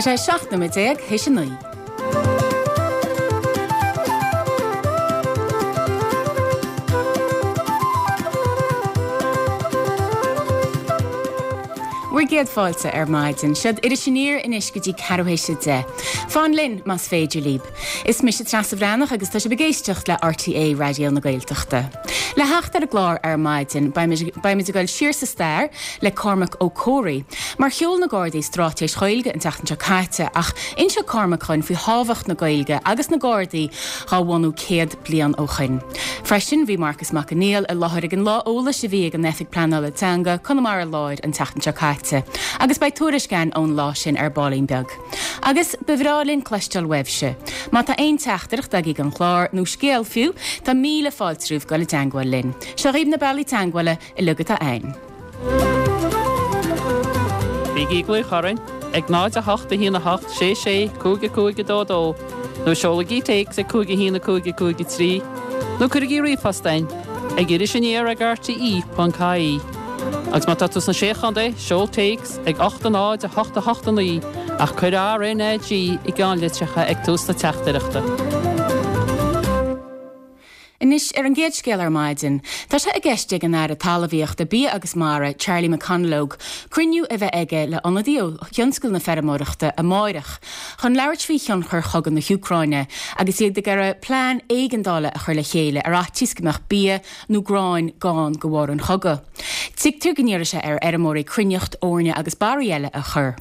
Tá sé 17 nóiméad théis a 9. Bhur gcéad fáilte ar maidin. Seod Iris Aniar anois go dtí ceathrú théis a 10. Fan linn más féidir libh. Is mise Treasa Bhreathnach agus tá sibh ag éisteacht le RTÉ Raidió na Gaeltachta. Le theacht ar an gclár ar maidin, beimid ag dul siar sa stair le Cormac Ó Comhraí, mar sheol na Gardaí straitéis Ghaeilge an tseachtain seo caite ach inseoidh Cormac dhúinn faoi thábhacht na Gaeilge agus na Gardaí dhá bhunú 100 bliain ó shoin. Freisin, bhí Marcas Mac Conghail i láthair ag an lá eolais a bhí ag an Oifig Pleanála Teanga, Conamara Láir an tseachtain seo caite agus beidh tuairisc againn ón lá sin ar baillín beag. Agus ba bhreá linn cloisteáil uaibhse. Má tá aon teachtaireacht agaibh don chlár, nó scéal fiú, tá míle fáilte romhaibh dul i dteangmháil linn. Seo dhaoibh na bealaí teangmhála uilig atá a'inn. Bígí ag glaoch orainn ag 0 8 1 8 6 6 5 5 2 2 nó seolaigí téacs ag 5 1 5 5 3 nó cuirigí ríomhphost a'inn ag irisaniar ag rte.ie. Agus má tá tú sna Sé Chontae, seol téacs ag 8 0 8 8 9 ach cuir RNAG i gceannlitreacha ag tús na teachtaireachta. Anois, ar an gcéad scéal ar maidin, tá sé i gceist ag an Aire Talmhaíochta, Bia agus Mara, Charlie McConalogue, cruinniú a bheith aige le ionadaí ó thionscal na feirmeoireachta amáireach chun labhairt faoi thionchar chogadh na hÚcráine agus iad ag iarraidh plean éigeandála a chur le chéile ar fhaitíos go mbeadh bia nó gráin gann de bharr an chogaidh. Tuigtear go n-iarrfaidh sé ar fheirmeoirí cruithneacht, eorna agus barraí eile a chur.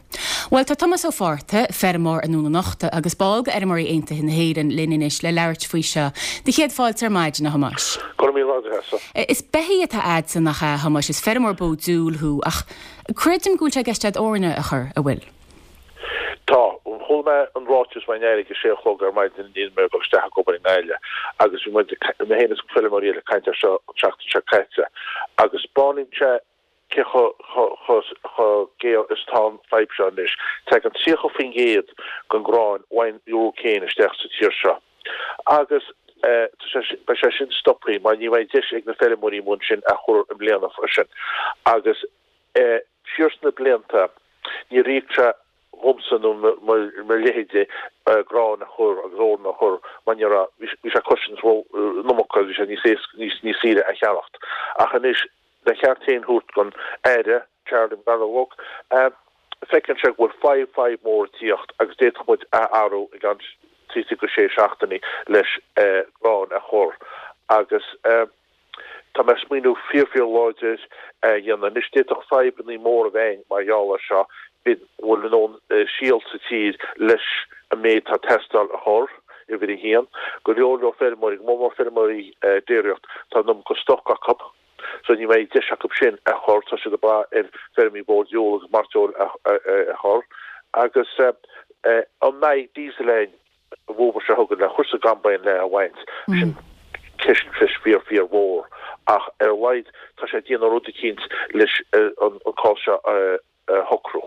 Bhuel, tá Tomás Ó Fátharta, feirmeoir i nDún an Uchta agus ball de Fheirmeoirí Aontaithe na hÉireann, linn anois le labhairt faoi seo. Do chéad fáilte ar maidin, a Thomáis. Go raibh míle maith agat, a Threasa. Is beithígh atá a'dsa, nach ea, a Thomáis? Is feirmeoir bó diúil thú, ach creidim go bhfuil sé i gceist a'd eorna a chur, a bhfuil? Tá. Chuala mé an ráiteas ón Aire ag a sé a chlog ar maidin i ndiaidh dom a dhul isteach ag obair i nGaillimh agus bhí muid, mé féin is feirmeoirí eile ag caint air seo an tseachtain seo caite agus 'speáineann sé cé chomh géar is atá an fadhb seo anois. Tagann 30% den ghrán ón Úcráin isteach sa tír seo agus beidh sé sin stoptha mar ní bheidh deis ag na feirmeoirí amuigh ansin a chur i mbliana freisin agus Siar sna blianta, níor íoc sé dhomsa nó mo leithéide grán a chur agus eorna a chur mar ní raibh, bhí sé ag cosaint an iomarca agus bhí sé níos éasca, níos saoire a cheannacht. Ach anois, le ceart féin thabhairt don Aire, Charlie McConalogue, feiceann sé go bhfuil fadhb, fadhb mór ag tíocht agus d'fhéadfadh muid a athrú i gceann trí go sé seachtainí leis grán a chur agus. Tá mé ag smaoineamh fíor fíor láidir a dhéanamh. Anois d'fhéadfadh fadhbannaí móra a bheith ann mar gheall air seo, b'fhéidir an bhfuil a ndóthain síol sa tír leis an méid atá ag teastáil a chur, uimhir a haon. Go leor leor feirmeoirí, go mór mór feirmeoirí déiríocht, tá an iomarca stoc acu so ní bheidh deis acu sin a chur, tá siad ag brath ar feirmeoirí bó diúil agus mairteoil a chur. Agus an mbeidh diesel ann? an bhfómhar seo chugainn le chur sa gcombine le a bhaint, sin ceist ceist fíor fíor mhór ach ar a laghad tá sé ag déanamh rud eicínt leis an cás seo a shocrú.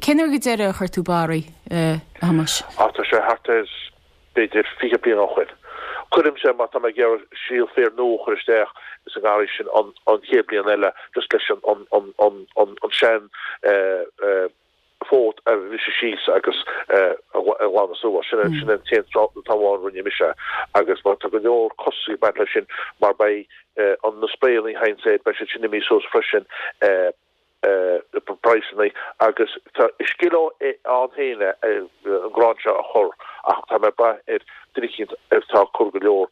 Cén uair go deireadh a chuir tú barraí, a Thomáis? Á tá sé thart ar b'fhéidir 20 bliain ó shoin. Cuirimse má tá mé ag iarraidh síol féir nua a chur isteach sa ngarraí sin an chéad bliain eile just leis an an an an sean fód a bhriseadh síos agus a ghlanadh suas. Sin an t-aon t-am amháin a rinne mise agus mar tá go leor costas ag baint leis sin mar beidh an na sprayanna a théann air, beidh siad sin imithe suas freisin praghsanna agus tá is scil ann féin é an grán seo a chur ach tá mé ag brath ar duine eicínt atá ag cur go leor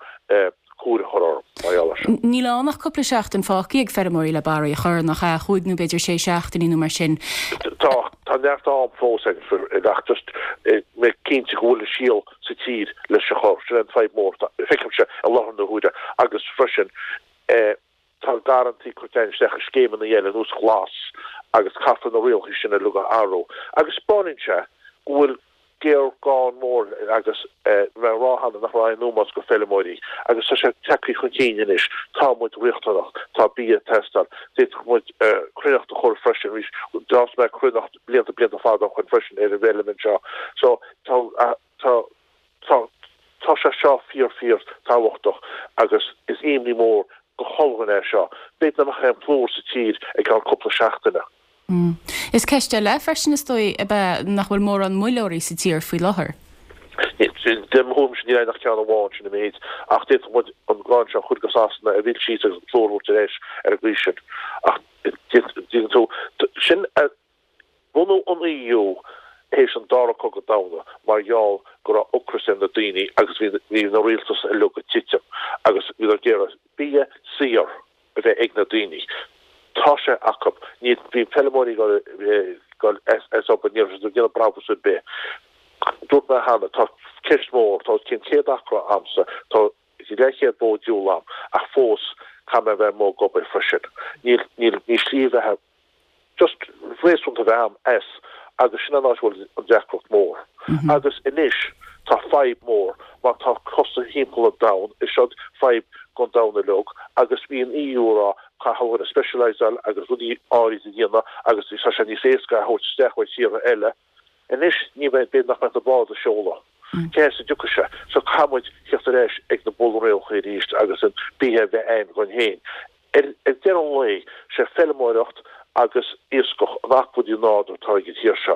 cúir a chur orm mar gheall air seo. Níl ann ach cúpla seachtain fágtha ag feirmeoirí le barraí a chur, nach ea? Chúig nó b'fhéidir sé seachtainí nó mar sin. Tá, tá neart am fós ag ach just mé cinnte go bhfuil an síol sa tír leis a chur. Sin an fadhb mór, feicimse i láthair na huaire agus freisin tá garrantaí curtha isteach i scéimeanna eile ar nós Glas agus caithfear na rialacha sin uilig a athrú agus 'speáineann sé go bhfuil géarghá mór agus bhí mé ag rá cheana nach raibh aon ómós go feirmeoirí agus tá sé tagtha chun cinn anois, tá muid riachtanach, tá bia ag teastáil, d'fhéadfadh muid cruithneacht a chur freisin arís, d'fhás mé cruithneacht blianta blianta fada ó shoin freisin ar an bhfeilm anseo so tá tá tá tá sé seo fíor fíor tábhachtach agus is imní mór go chuile dhuine é seo. B'fhéidir nach mbeadh aon phlúr sa tír i gceann cúpla seachtaine. Is ceist eile freisin, is dóigh, ab ea nach bhfuil mórán muilleoirí sa tír faoi láthair. De mo thuairimse níl ann ach ceann amháin, sin an méid. Ach d'fhéadfadh muid an grán seo a chur go Sasana a mhilleadh síos agus an plúr a thabhairt ar ais ar an gcaoi sin. Ach tuigeann tú, sin bunú an EU théis an Dara Cogadh Domhanda mar gheall go raibh ocras ar na daoine agus bhí na rialtais uilig ag titim agus bhíodar ag iarraidh bia saor. a bheith ag na daoine. Tá sé acu. Ní, bhí feilméaraí ag dul as obair, ní raibh siad ag déanamh brabús ar bith. Dúirt mé cheana, tá ceist mhór, tá os cionn 100 acra a'msa, tá leathchéad bó ag diúl a'm, ach fós caithfidh mé a bheith amuigh ag obair freisin. Níl, níl, níl slí bheatha just réasúnta a bheith a'm as agus sin an áit a bhfuil an deacracht mór. Agus anois tá fadhb mór mar tá costais thimpeall an domhan, is seod fadhb gon domhan uilig agus bhí an EU a rá caithfidh muid specialiseáil agus rudaí áirid a dhéanamh agus tá sé níos éasca a thabhairt isteach ó thíortha eile. Anois ní bheidh, b'fhéidir nach mbeidh na báid ag seoladh. Cé as a dtiocfaidh sé? So caithfidh muid theacht ar ais ag na bunrialacha arís agus an bia a bheith a'inn dhúinn féin. Ar deireadh an lae, sé feilméaracht agus iascach an acmhainn nádúr atá ag an tír seo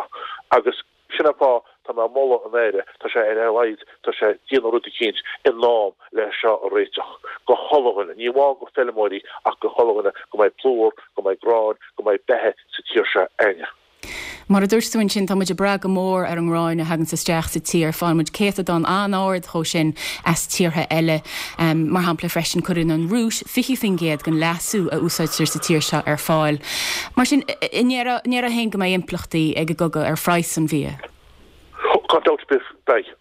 agus sin an fáth tá mé ag moladh an Aire, tá sé ar a laghad, tá sé ag déanamh rud eicínt in am le seo a réiteach go chuile dhuine, ní amháin go feilméaraí ach go chuile dhuine, go mbeidh plúr, go mbeidh grán, go mbeidh beatha sa tír seo a'inne. Mar a dúirt tú ansin, tá muid ag brath go mór ar an ngráin a thaganns isteach sa tír. Faigheann muid céatadán an-ard dhó sin as tíortha eile. Mar shampla freisin, cuireann an Rúis 20% den leasú a úsáidtear sa tír seo ar fáil. Mar sin, an ndéarfá féin go mbeidh impleachtaí ag an gcogadh ar phraghas an bhia? Gan dabht ar bith, beidh.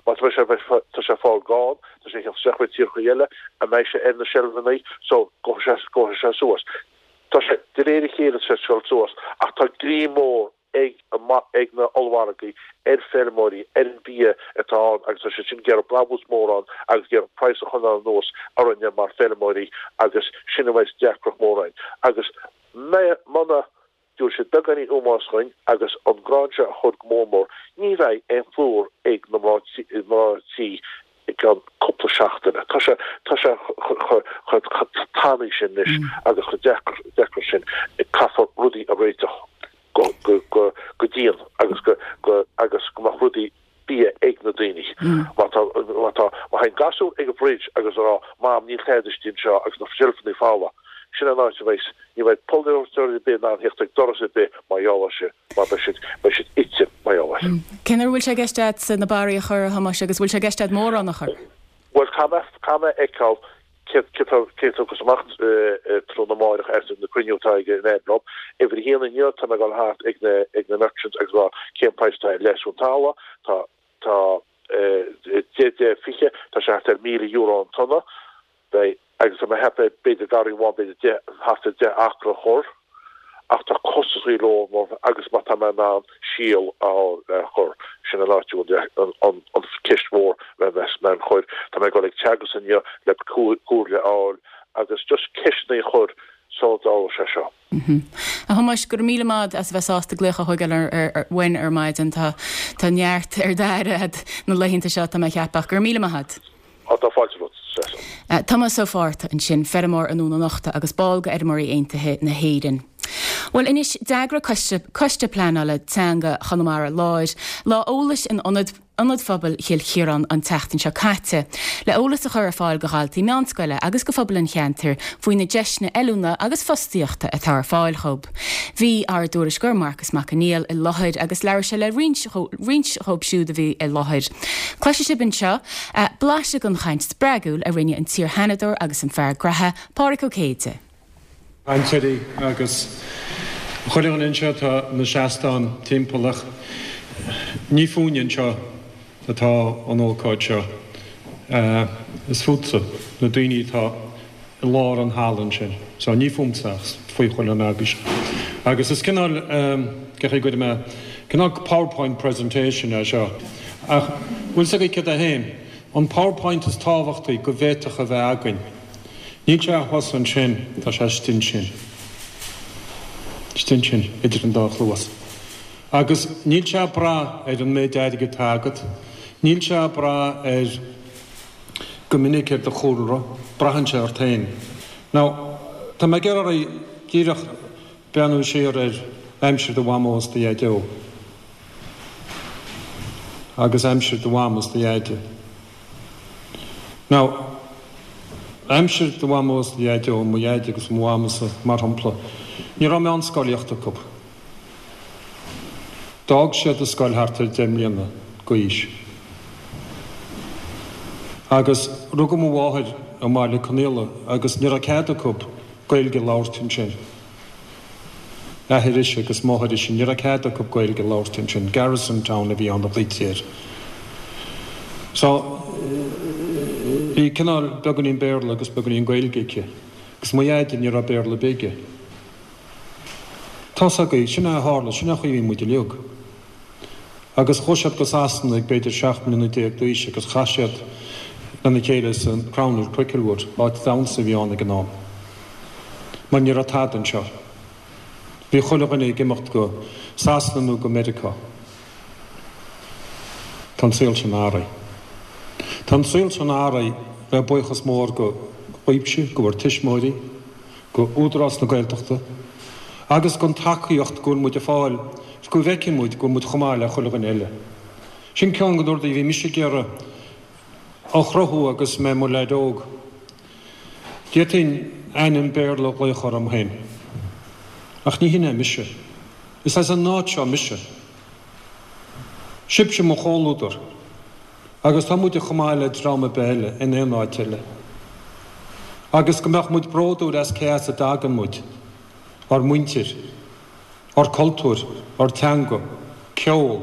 Má tá sé, tá sé ag fáil gann, tá sé ag theacht isteach ó tíortha eile, an mbeidh sé ar na seilfeanna, so gabhfaidh sé, gabhfaidh sé suas. Tá sé, de réir a chéile, tá sé ag dul suas, ach tá greim mór ag ag na ollmhargaí ar feirmeoirí, ar an bhia atá ann agus tá siad sin ag iarraidh brabús mór ann agus ag iarraidh praghas a choinneáil anuas orainne mar feirmeoirí agus sin a bheas deacracht mór againn. Agus muna dtabharfaidh siad beagáinín ómóis dhuinn agus an grán seo a chur go mór mór, ní bheidh aon phlúr ag na mná tí i gceann cúpla seachtaine. Tá sé, tá sé chomh tanaí sin anois agus chomh deacair, deacair sin. Caithfear rudaí a réiteach go, go, go, go dian agus go, go, agus go mbeadh rudaí bia ag na daoine. Má tá, má tá, má théann gasúr ag an bhfridge agus a rá, Mam, níl tada istigh anseo agus na seilfeanna folamh, sin an áit a bheidh, ní bheidh polaiteoir ar bith in ann theacht ag doras ar bith mar gheall air sin. Mar beidh siad, beidh siad ite mar gheall air. Cén uair a bhfuil sé i gceist agat na barraí a chur, a Thomáis, agus bhfuil sé i gceist agat mórán a chur? Bhuel, caithfidh mé, caithfidh mé a fheiceáil céard, céard tá, céard a thiocfas amach tráthnóna amáireach as na cruinniú atá ag an Aire liom. Uimhir a haon inniu, tá mé ag dul thart ag na, ag na merchants agus rá cén praghas atá ar leasú an talamh. Tá, tá, 10, 10, 20, tá sé thart ar €1,000 an tonna. Beidh, agus tá mé ag ceapadh, b'fhéidir garraí amháin, b'fhéidir 10, thart ar 10 acra a chur, ach tá costasaí leor agus má tá mé in ann síol a fháil le cur, sin an áit a bhfuil an cheist mhór le mé a chur. Tá mé ag dul ag Teagasc inniu le comhairle a fháil agus just ceisteanna a chur sula dtarlóidh sé seo. A Thomáis, go raibh míle maith a'd as a bheith sásta glaoch a thógáil uainn ar maidin. Tá tá neart ar d'aire a'd na laethanta seo, tá mé a cheapadh. Go raibh míle maith a'd. Á, tá fáilte romhat, Treasa. Tomás Ó Fátharta ansin, feirmeoir i nDún an Uchta agus ball de Fheirmeoirí Aontaithe na hÉireann. Bhuel anois, d'eagraigh Coiste Coiste Pleanála Teanga Chonamara Láir lá eolais in Ionad Ionad Phobail Chill Chiaráin an tseachtain seo caite, le eolas a chur ar fáil do dhaltaí meánscoile agus do phobal an cheantair faoi na deiseanna oiliúna agus fostaíochta atá ar fáil dhób. Bhí ár dtuairisceoir Marcas Mac Conghail i láthair agus labhair sé le roinnt roinnt dhób siúd a bhí i láthair. Cloisfidh sibh anseo blaiseadh den chaint spreagúil a rinne an t-iar-Sheanadóir agus an fear graithe, Pádraig Ó Céide. Cainteoirí agus chuile dhuine anseo atá ina seastán timpeall ach ní fúinne anseo atá an ócáid seo. Is fútsa, na daoine atá i lár an halla ansin. So ní fúmsa ach faoi chuile dhuine agaibhse. Agus is cineál, cén chaoi a gcuirfidh mé, cineál PowerPoint presentation é seo. Ach bhfuil 's agaibh céard é féin? An PowerPoint is tábhachtaí go bhféadfadh a bheith againn. Níl sé thuas ansin, tá sé istigh ansin. Istigh ansin, idir an dá chluas. Agus níl sé ag brath ar an méid airgid atá agat, níl sé ag brath ar, go minic ar do chúlra, braitheann sé ort féin. Now, tá mé ag iarraidh oraibh díreach breathnú siar ar. Aimsir do mhamó is do dhaideo agus aimsir do mham is do dhaide. Now, aimsir do mhamó is do dhaideo, mo dhaid agus mo mhamsa, mar shampla, ní raibh meánscolaíocht acu. D'fhág siad an scoil thart ar 10 mbliana d'aois. Agus rugadh mo mháthair i mBaile Conaola agus ní raibh cead acu Gaeilge a labhairt ansin. Athair ise agus máthair ise, ní raibh cead acu Gaeilge a labhairt ansin. Garrison Town a bhí ann a ghlaoití air. So, bhí cineál beagáinín Béarla agus beagáinín Gaeilge aici. Agus mo dhaid, ní raibh Béarla ar bith aige. Tá's agaibh, sin é a tharla, sin é an chaoi a bhí muid uilig. Agus chuaigh siad go Sasana ag b'fhéidir 17 mbliana d'aois agus chas siad lena chéile sa Crown at Cricklewood, áit damhsa a bhí ann ag an am. Mar ní raibh tada anseo. Bhí chuile dhuine ag imeacht go Sasana nó go Meiriceá. Tá an saol sin athraithe. Tá an saol sin athraithe le buíochas mór go dhaoibhse, go bhur tuismitheoirí, go Údarás na Gaeltachta agus gon tacaíocht go bhfuil muid ag fáil 's go bhfeiceann muid go bhfuil muid chomh maith le chuile dhuine eile. Sin ceann de na rudaí a bhí mise ag iarraidh a chruthú agus mé i mo leaid óg. D'fhéadfainn ainm Béarla a ghlaoch orm féin. Ach ní hin é mise. Is as an áit seo mise. Sibhse mo chomhluadar. Agus tá muide chomh maith le dream ar bith eile in aon áit eile. Agus go mbeadh muid bródúil as cé as a dtagann muid, ár muintir, ár cultúr, ár teanga, ceol,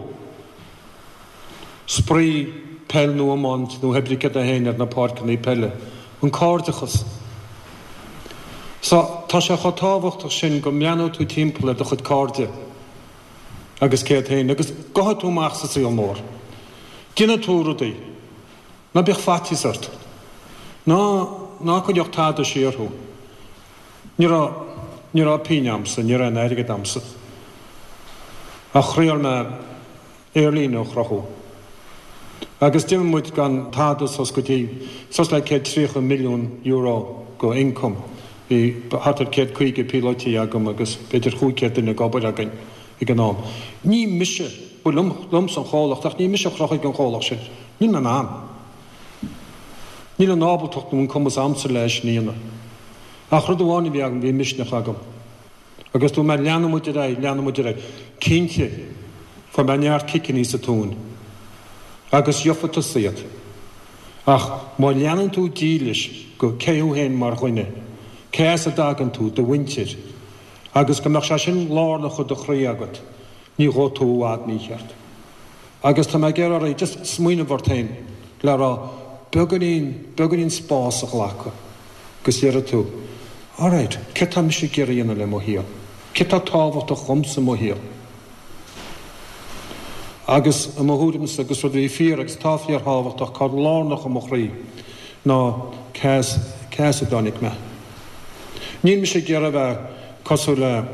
spraoi, peil nó iomáint nó hé brí céard é féin ar na páirceanna peile, an cairdeachas. So, tá sé chomh tábhachtach sin go mbreathnóidh tú timpeall ar do chuid cairde. agus cé hiad féin, agus gabhfaidh tú amach sa saol mór. Déanfaidh tú rudaí. Ná bíodh faitíos ort. Ná, ná coinneodh tada siar thú. Ní raibh, ní raibh pingin a'msa, ní raibh aon airgead a'msa. Ach thriail mé aerlíne a chruthú. Agus d'imigh muid gan tada suas go dtí, suas le €130 milliún go income. Bhí thart ar 150 píolótaí agam agus b'fhéidir 500 duine ag obair againn ag an am. Ní mise, ba liom, liomsa an chomhlacht ach ní mise a chruthaigh an chomhlacht sin. Níl mé in ann. Níl an ábaltacht nó an cumas a'msa le é sin a dhéanamh. Ach rud amháin a bhí agam, bhí misneach agam. Agus dúirt mé, leanfaidh muid ar aghaidh, leanfaidh muid ar aghaidh. Cinnte, fuair mé neart ciceannaí sa tóin. Agus gheofa tusa iad. Ach má leanann tú dílis go cé thú féin mar dhuine, cé as a dtagann tú, do mhuintir, agus go mbeadh sé sin lárnach i do chroí agat, ní ghabhfaidh tú i bhfad mícheart. Agus tá mé ag iarraidh oraibh just smaoineamh ort féin le rá beagáinín, beagáinín spás a ghlacadh agus déarfaidh tú, alright, céard tá mise ag iarraidh a dhéanamh le mo shaol? Céard tá tábhachtach dhomsa i mo shaol? Agus i mo thuairimse, agus rud a bhí fíor agus atá fíorthábhachtach, atá lárnach i mo chroí, ná cé as, cé as a dtáinig mé. Níl mise ag iarraidh a bheith cosúil le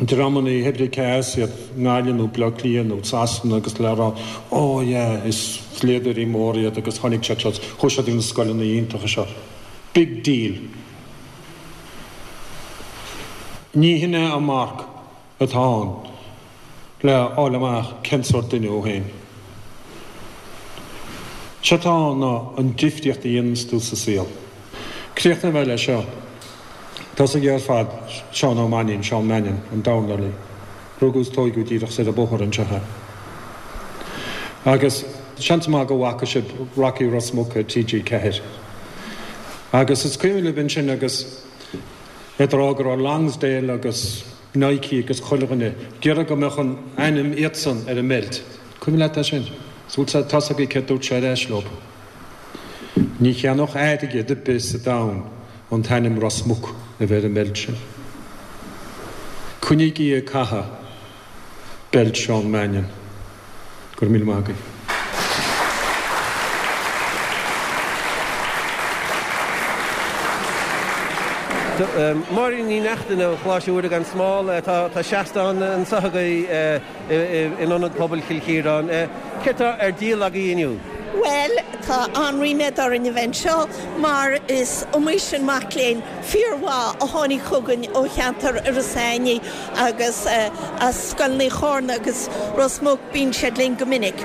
dreamanna hé brí cé as iad, i nGaillimh nó Baile Átha Cliath nó Sasana agus le rá oh yeah is dlíodóirí móra iad agus tháinig siad seo, chuaigh siad ag na scoileanna iontacha seo. Big deal. Ní hin é an marc. atá ann le fháil amach cén sórt duine thú féin. Sé atá ann ná an difríocht a dhéananns tú sa saol. Críochnóidh mé leis seo. Tá's agaibh ar fad Seán Ó Mainnín, Seán Mannion, an dornálaí. Rugadh is tóigeadh díreach soir an bóthar anseo é. Agus seans maith go bhfaca sibh Rocky Ros Muc ar TG4. Agus is cuimhin libh ansin agus é ag rá go raibh Lonsdale agus Nike agus chuile dhuine ag iarraidh go mbeadh an ainm iadsan ar an mbeilt. Cuimhin leat é sin? Bhuel tá's agaibh céard dúirt sé ar ais leo. Ní cheannódh airgead ar bith sa domhan an t-ainm Ros Muc a bheith ar an mbeilt sin. Coinnígí ag caitheamh beilt Seán Mannion. Go raibh míle maith agaibh. Máirín Ní Neachtain ó Choláiste Mhuire gan Smál, tá seastán anseo agaibh in Ionad Pobail Chill Chiaráin. Céard tá ar díol agaibh inniu? Bhuel, tá an-ríméad orainn a bheith anseo mar is iomaí sin mac léinn fíormhaith a tháinig chugainn ó cheantar Iorras Aithnigh agus as scoileanna Chárna agus Ros Muc, bíonn siad linn go minic.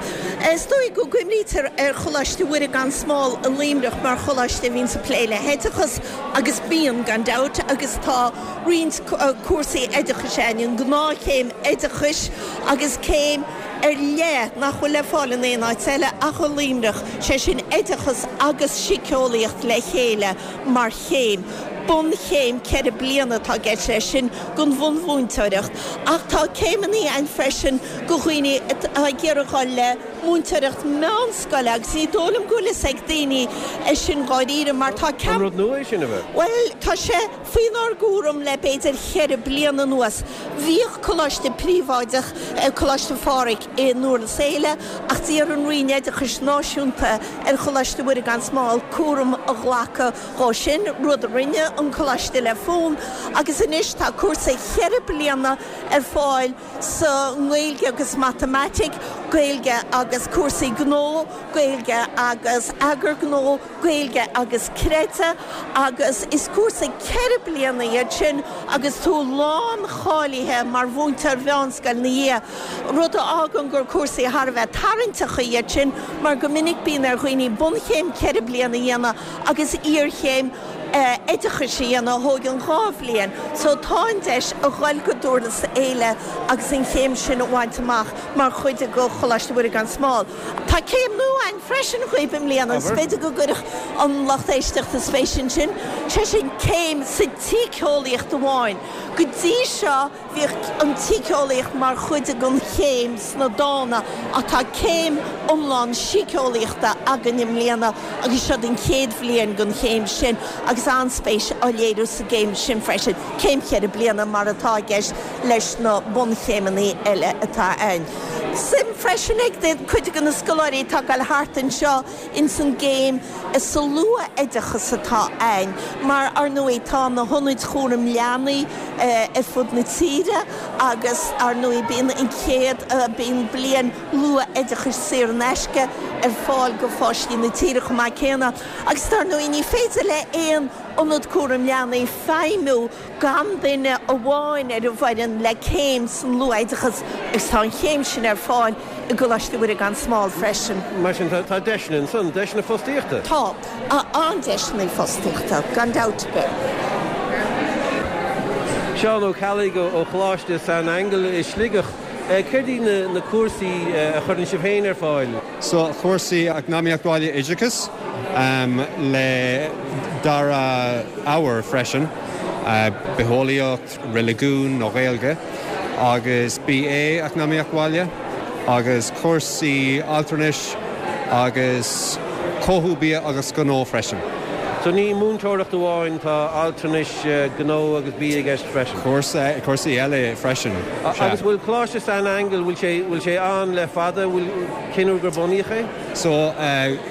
Is dóigh go gcuimhnítear ar Choláiste Mhuire gan Smál i Luimneach mar choláiste a bhíonns ag plé le hoideachas agus bíonn, gan dabht, agus tá roinnt cúrsaí oideachais againn, an gnáthchéim oideachais agus céim ar leith nach bhfuil le fáil in aon áit eile ach i Luimneach, sé sin oideachas agus síceolaíocht le chéile mar chéim. Bunchéim 4 bliana atá i gceist leis sin don bhunmhúinteoireacht ach tá céimeanna ann freisin do dhaoine atá ag iarraidh dhul le múinteoireacht meánscoile agus ní dóigh liom go bhfuil fhios ag daoine é sin dháiríre mar tá An rud nua é sin, ab ea? Bhuel, tá sé faoinár gcúram le b'fhéidir cheithre bliana anuas. Bhíodh coláiste príobháideach, Coláiste Phádraig i nDurlas Éile, ach d'iarr an Roinn Oideachais Náisiúnta ar Choláiste Mhuire gan Smál cúram a ghlacadh dhó sin, rud a rinne an coláiste le fonn, agus anois tá cúrsa cheithre bliana ar fáil sa nGaeilge agus Matamaitic, Gaeilge agus cúrsaí gnó, Gaeilge agus eagar gnó. Gaeilge agus Creideamh agus is cúrsa 4 bliana iad sin agus tú lán-cháilithe mar mhúinteoir mheánscoile ina dhiaidh, rud a fhágann gur cúrsaí thar a bheith tarraingteacha iad sin mar go minic bíonn ar dhaoine bunchéim 4 bliana a dhéanamh agus iarchéim oideachais a dhéanamh a thóigeann 2 bhliain. So tá an deis a dhul go Durlas Éile agus an chéim sin a bhaint amach mar chuid de Choláiste Mhuire gan Smál. Tá céim nua ann freisin dhaoibh i mbliana agus b'fhéidir go gcuirfeadh an lucht éisteachta spéis ansin, sé sin céim sa tsíceolaíocht amháin. Go dtí seo bhíodh an tsíceolaíocht mar chuid den chéim sna dána ach tá céim iomlán síceolaíochta againn i mbliana agus seod an chéad bhliain den chéim sin agus an-spéis á léiriú sa gcéim sin freisin, céim cheithre bliana mar atá i gceist leis na bunchéimeanna eile atá ann. Suim freisin ag cuid de na scoláirí atá ag dul thart anseo ins an gcéim sa luath-oideachas atá ann, mar ar ndóigh tá na hionaid chúraim leanaí ar fud na tíre agus ar ndóigh bíonn an chéad, bíonn bliain luath-oideachais saor in aisce ar fáil go pháistí na tíre chomh maith céanna. Agus dar ndóigh ní féidir le aon ionad cúraim leanaí feidhmiú gan duine amháin ar an bhfoireann le céim san luath-oideachas agus tá an chéim sin ar fáil i gColáiste Mhuire gan Smál freisin. Mar sin tá deiseanna ansan, deiseanna fostaíochta? Tá, an-deiseanna fostaíochta, gan dabht ar bith. Seán Ó Ceallaigh ó Choláiste San Aingeal i Sligeach. Céard iad na cúrsaí a chuireann sibh féin ar fáil? So, cúrsaí Eacnamaíocht Bhaile Oideachas le dara ábhar freisin, Bitheolaíocht, Reiligiún nó Gaeilge, agus BA Eacnamaíocht Bhaile, agus cúrsaí altranais agus Cothú Bia agus Gnó freisin. So ní múinteoireacht amháin, tá altranais, gnó agus bia i gceist freisin. Cúrsaí eile freisin, sea. Agus bhfuil Coláiste San Aingeal, bhfuil sé, bhfuil sé ann le fada, bhfuil, cén uair gur bunaíodh é? So,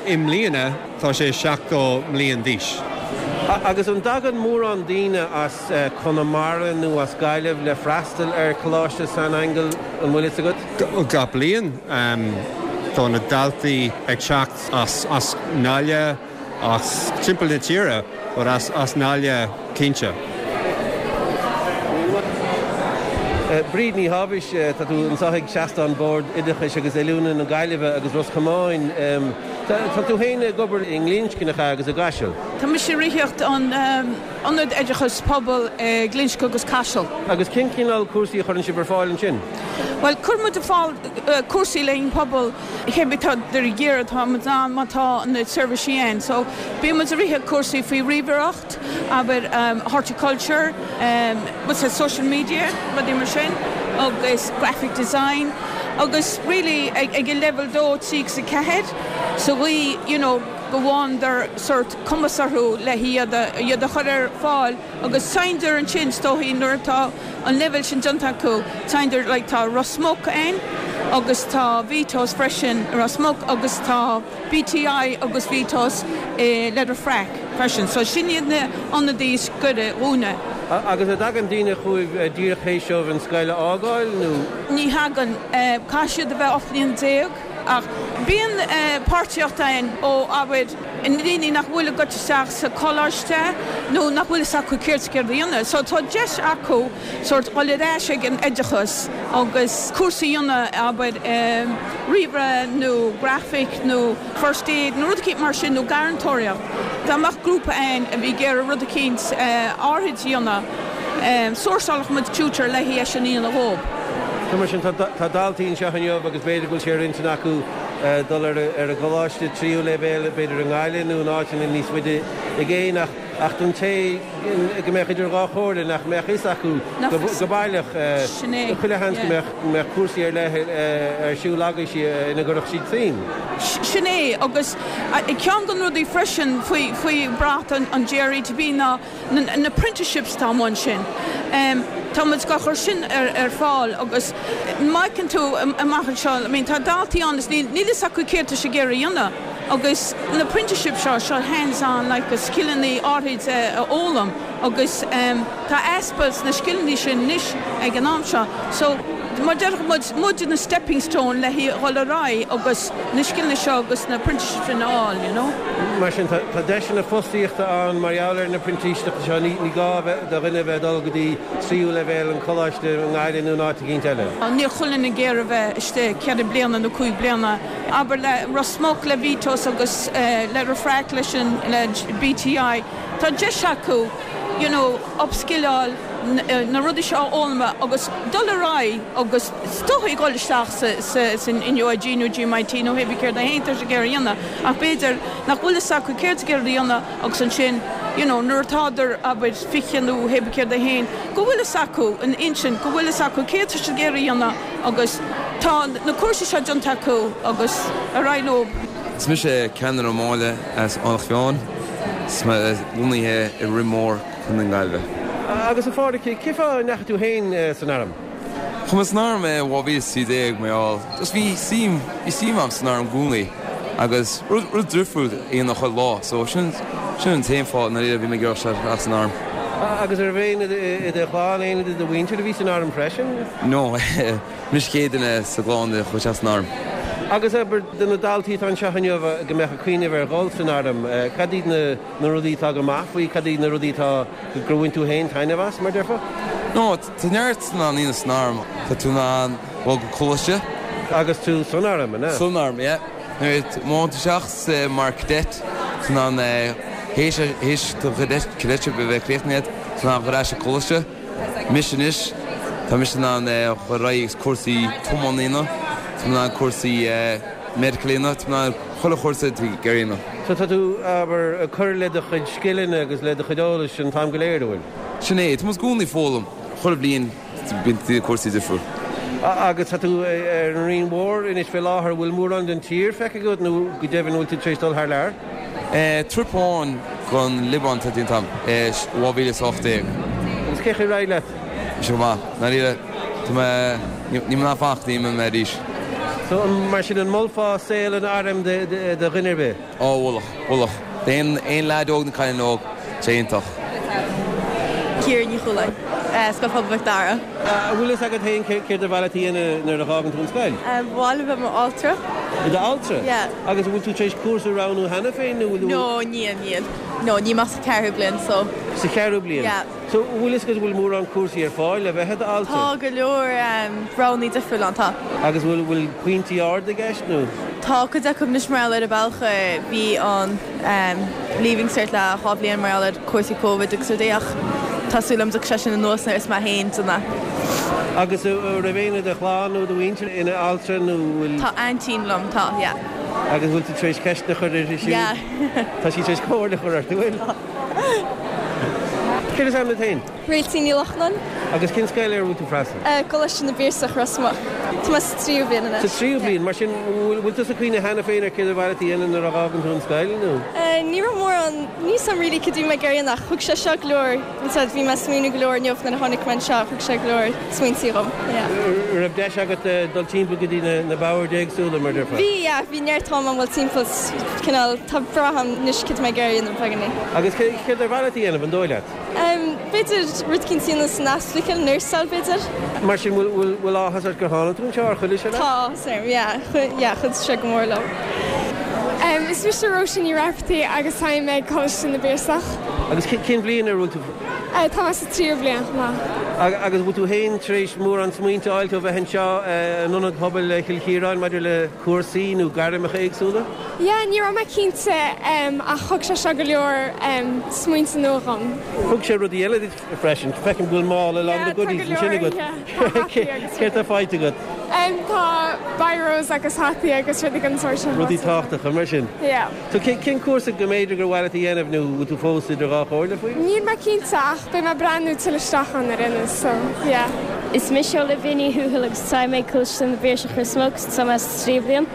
i mbliana tá sé 70 mbliain d'aois. Agus an dtagann mórán daoine as Conamara nó as Gaillimh le freastal ar Choláiste San Aingeal, an bhfuil fhios agat? Gach bliain tá na daltaí ag teacht as, as nGaillimh, As timpeall na tíre, but as as nGaillimh cinnte. Bríd Ní Thábhais, tá tú anseo ag seastán Bord Oideachais agus Oiliúna na Gaillimhe agus Ros Comáin. Tá tú féin ag obair i nGlinsce, nach ea, agus i gCaiseal? Tá mise ag ritheacht an Ionad Oideachais Pobail i nGlinsce agus Caiseal. Agus cén cineál cúrsaí a chuireann sibh ar fáil ansin? Bhuel, cuireann muid ar fáil cúrsaí le haghaidh an pobal. Cé tá ar iarraidh tá muid ann má tá na seirbhísí ann. So bíonn muid ag rith cúrsaí faoi ríomhaireacht, abair horticulture, what's that, social media, rudaí mar sin, agus graphic design agus really ag ag an leibhéal 2, 3 agus 4 sa gcaoi you know go bhfágtar sort cumas orthu le hiad a iad a chur ar fáil Agus téanndar ansin, is dóichí, nuair atá an leibhéal sin déanta acu, téanndar, like tá Ros Muc ann agus tá Vito's freisin i Ros Muc agus tá BTI agus Vito's i Leitir Fraic freisin. So sin iad na ionadaí is gaire dhúinne. Agus an dtagann daoine chugaibh díreach théis dóibh an scoil a fhágáil nó? Ní thagann. Caithfidh siad a bheith 18 bliain. Ach bíonn páirtíocht ann ó, abair, na daoine nach bhfuil ag goil isteach sa choláiste nó nach bhfuil fhios acu céard is ag iarraidh a dhéanamh. So tá deis acu sórt dhul ar ais ag an oideachas agus cúrsa a dhéanamh, abair, ríomhaire nó grafaic nó first aid nó rud eicínt mar sin nó garrantóireacht. Dá mbeadh grúpa ann a bhí ag iarraidh rud eicínt áirid a dhéanamh, sourceálfadh muid tutor le é sin a dhéanamh dhób. So mar sin tá daltaí anseo inniu agus b'fhéidir go bhfuil sé ar intinn acu dul ar an gcoláiste tríú leibhéal, b'fhéidir i nGaillimh nó in áiteanna níos faide i gcéin ach ach don té go mbeadh idir dhá chomhairle nach mbeadh fhios acu go baileach, chuile sheans go mbeadh cúrsaí ar leith ar siúl agaibhse ina gcuirfeadh siad suim. Sin é agus ceann de na rudaí freisin faoi bhrat an GRETB ná na apprenticeships atá amuigh ansin. Tá muid á chur sin ar fáil agus má fheiceann tú amach anseo, I mean tá daltaí ann is níl fhios acu céard tá siad ag iarraidh a dhéanamh agus na apprenticeships seo, seo hands on like scileanna áirid a fhoghlaim agus tá easpa sna scileanna sin anois ag an am seo. So mar déarfadh muid, muid na stepping stone le dhul ar aghaidh agus na scileanna seo agus na apprenticeships sin a fháil, you know. Mar sin, tá deiseanna fostaíochta ann mar gheall ar na printíseachtaí seo, ní gá do dhuine a bheith ag dul go dtí tríú leibhéal an choláiste i nGaillimh nó in áit eicínt eile. Níl chuile dhuine ag iarraidh a bheith istigh ceithre bliana nó cúig bliana, abair le Ros Muc, le Vtos agus le Refract, leis an le BTI, tá deis acu you know upskilleáil, na rudaí seo a fhoghlaim agus dul ar aghaidh agus is dóichí dhul isteach sa san NUIG nó GMIT nó hébí céard é féin tá siad ag iarraidh a dhéanamh ach b'fhéidir nach bhfuil fhios acu céard ag iarraidh a dhéanamh agus ansin you know nuair atádar abair 20 nó hébí céard é féin go bhfuil fhios acu an intinn go bhfuil fhios acu céard tá siad ag iarraidh a dhéanamh agus tá na cúrsaí seo déanta acu agus ar aghaidh leo. Is mise Ceanann Ó Máille as Aonach Mheáin, is mé lonnaithe i Rinn Mór, Co. na Gaillimhe. Agus a Phádraig, cén fáth a ndeachaigh tú féin san arm? Chuaigh mé san arm i 2013 mar gheall, just bhí suim, bhí suim agam san arm i gcónaí agus rud, rud difriúil a dhéanamh chuile lá so sin, sin an t-aon fáth i ndáiríre a bhí mé ag iarraidh dul isteach san arm. Agus an raibh éinne i do chlann, éinne de do mhuintir a bhí san arm freisin? No, mise an chéad duine sa gclann a chuaigh isteach san arm. Agus abair, do na daltaí atá anseo inniu go mbeadh ag cuimhneamh ar dhul san arm, cad iad na. na rudaí atá go maith faoi, cad iad na rudaí atá, gur bhain tú féin taitneamh as, mar déarfá? No, tá neart in ann a dhéanamh san arm. Tá tú in ann dul go coláiste. Agus tú san arm, an ea? San arm, yeah. Nuair a má théann tú isteach mar cadet, tá tú in ann, théis, théis do cadet, cadetship a bheith críochnaithe agat, tá tú in ann dul ar ais ag coláiste. Mise anois, tá mise in ann dul ar aghaidh agus cúrsaí tiomána a dhéanamh, tá mé in ann cúrsaí medical a dhéanamh, tá mé in ann chuile chúrsa atá ag iarraidh a dhéanamh. So tá tú, abair, ag cur le do chuid scileanna agus le do chuid eolais an t-am go léir, an bhfuil? Sin é, tá muid i gcónaí ag foghlaim, chuile bhliain bíonn cúrsaí difriúil. Agus tá tú ar an Rinn Mhór anois fé láthair, an bhfuil mórán den tír feicthe agat nó go deimhin an bhfuil tú tar éis dul thar lear? Trip amháin gon Liobáin atá déanta agam i 2018. Agus cén chaoi ar éirigh leat? Bhí sé go maith. Ndáiríre, tá mé, níl mé in ann fanacht go dtí mé arís. So, mar sin, an molfá saol an airm do dhuine ar bith? Ó, mholfadh, mholfadh. D'aon aon leaid óg nó cailín óg, tá sé iontach. Ciara Ní Chualáin, Scoil Phobail Mhic Dara. An bhfuil fhios agat féin céard ar mhaith leat a dhéanamh nuair a dh'fhágann tú an scoil? Ba mhaith liom bheith i m'altra. I d'altra? Yeah. Agus an bhfuil tú tar éis cúrsa a roghnú cheana féin nó bhfuil tú. No, níl, níl. No, níl mé ach sa cheathrú bliain so. Sa cheathrú bliain? Yeah. So, an bhfuil fhios agat an bhfuil mórán cúrsaí ar fáil le bheith i d'altra? Tá go leor roghanna difriúla ann, tá. Agus bhfuil, bhfuil pointí arda i gceist nó? Tá cuid acu anois mar gheall ar an bealach a bhí an Leaving Cert le 2 bhliain mar gheall ar cúrsaí Covid agus rudaí ach tá súil agam go dtiocfaidh sé sin anuas nuair is mé féin déanamh. Agus an raibh éinne i do chlann nó do mhuintir ina altra nó bhfuil? Tá aintín liom, tá, yeah. Agus bhfuil tú tar éis ceisteanna a chur uirthi siúd? Yeah. Tá sí tar éis comhairle a chur ort, an bhfuil? Tá. Céard is ainm duit féin? Réiltín Ní Lochnáin. Agus cén scoil ar a bhfuil tú ag freastal? Coláiste na bPiarsach, Ros Muc. Tá mé sa tríú bliain anois. Sa tríú bliain? Mar sin, bhfuil tusa ag cuimhneamh cheana féin ar céard ar mhaith leat a dhéanamh nuair a dh'fhágann tú an scoil, nó? Ní raibh mórán, níl 's a'm really cad a bhí mé ag iarraidh a dhéanamh ach thug sé seo go leor, bhí mé ag smaoineamh go leor inniu nuair a tháinig mé anseo, thug sé go leor smaointí dhom, yeah. An raibh deis agat dul timpeall go dtí na boird éagsúla, mar déarfá? Bhí, yeah, bhí neart am a'm dul timpeall, cineál, tá breá a'm anois cad a bhí mé ag iarraidh a dhéanamh beagáinín. Agus céard ar mhaith leat a dhéanamh, an dóigh leat? B'fhéidir. rud eicínt a dhéanamh san ospidéal, nursáil b'fhéidir. Mar sin, bhfuil, bhfuil áthas ort gur tháinig tú anseo, ar chuidigh sé leat? Tá áthas orm, yeah, yeah, chuidigh sé go mór liom. Is mise Róisín Ní Raifeartaigh agus táim ag Coláiste na bPiarsach. Agus cén bhliain ar bhfuil tú? Tá mé sa tríú bliain chomh maith. Agus bhfuil tú féin tar éis mórán smaointe a fháilt ó bheith anseo in Ionad Pobail Chill Chiaráin maidir le cúrsaí nó gairmeacha éagsúla? Yeah, ní raibh mé cinnte ach thug sé seo go leor smaointe nua dhom. Thug sé rudaí eile duit freisin. Feicim go bhfuil mála lán de goodies ansin agat. Céard tá faighte agat? Tá biros agus hataí agus rudaí den sórt sin. Rudaí tábhachtacha mar sin. Yeah. So cén cúrsa go mb'fhéidir gur mhaith leat a dhéanamh nó bhfuil tú fós idir dhá chomhairle faoi? Níl mé cinnte ach beidh mé ag breathnú tuilleadh isteach ann ar aon nós so yeah. Is mise Olivia Ní Thuathail agus táim ag Coláiste na bPiarsach Ros Muc agus tá mé sa tríú bliain.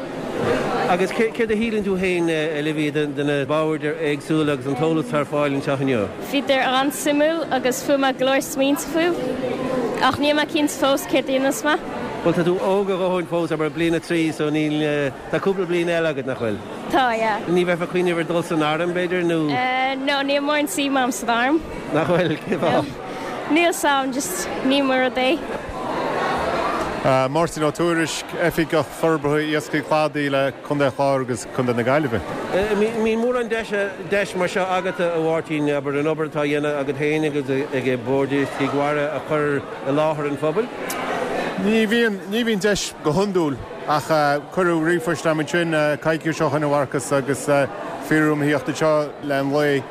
Agus céard a shíleann tú féin, Olivia, de na boird éagsúla agus an t-eolas atá ar fáil anseo inniu? Bhíodar an-suimiúil agus fuair mé go leor smaointe fúthu ach níl mé cinnte fós céard a dhéanfas mé. Bhuel, tá tú óg a dhóthain fós, abair, bliain a 3, so níl, tá cúpla bliain eile agat, nach bhfuil? Tá, yeah. Ní bheifeá ag cuimhneamh ar dul san arm, b'fhéidir, nó? No, níl mórán suim agam san arm. Nach bhfuil? Cén fáth? Níl 's a'm, just ní mo rud é. Máirtín Ó Tuairisg, Oifigeach Forbartha Iascaigh Cladaigh le Contae an Chláir agus Contae na Gaillimhe. An mbíonn mórán deis mar seo agat, a Mháirtín, abair, an obair atá á dhéanamh agat féin agus ag Bord Iascaigh Mhara a chur i láthair an phobail? Ní bhíonn, ní bhíonn deis go hiondúil ach cuireadh ríomhphost agam ansin coicís ó shin a Mharcas agus fiafraíodh orm a thíocht anseo le an lae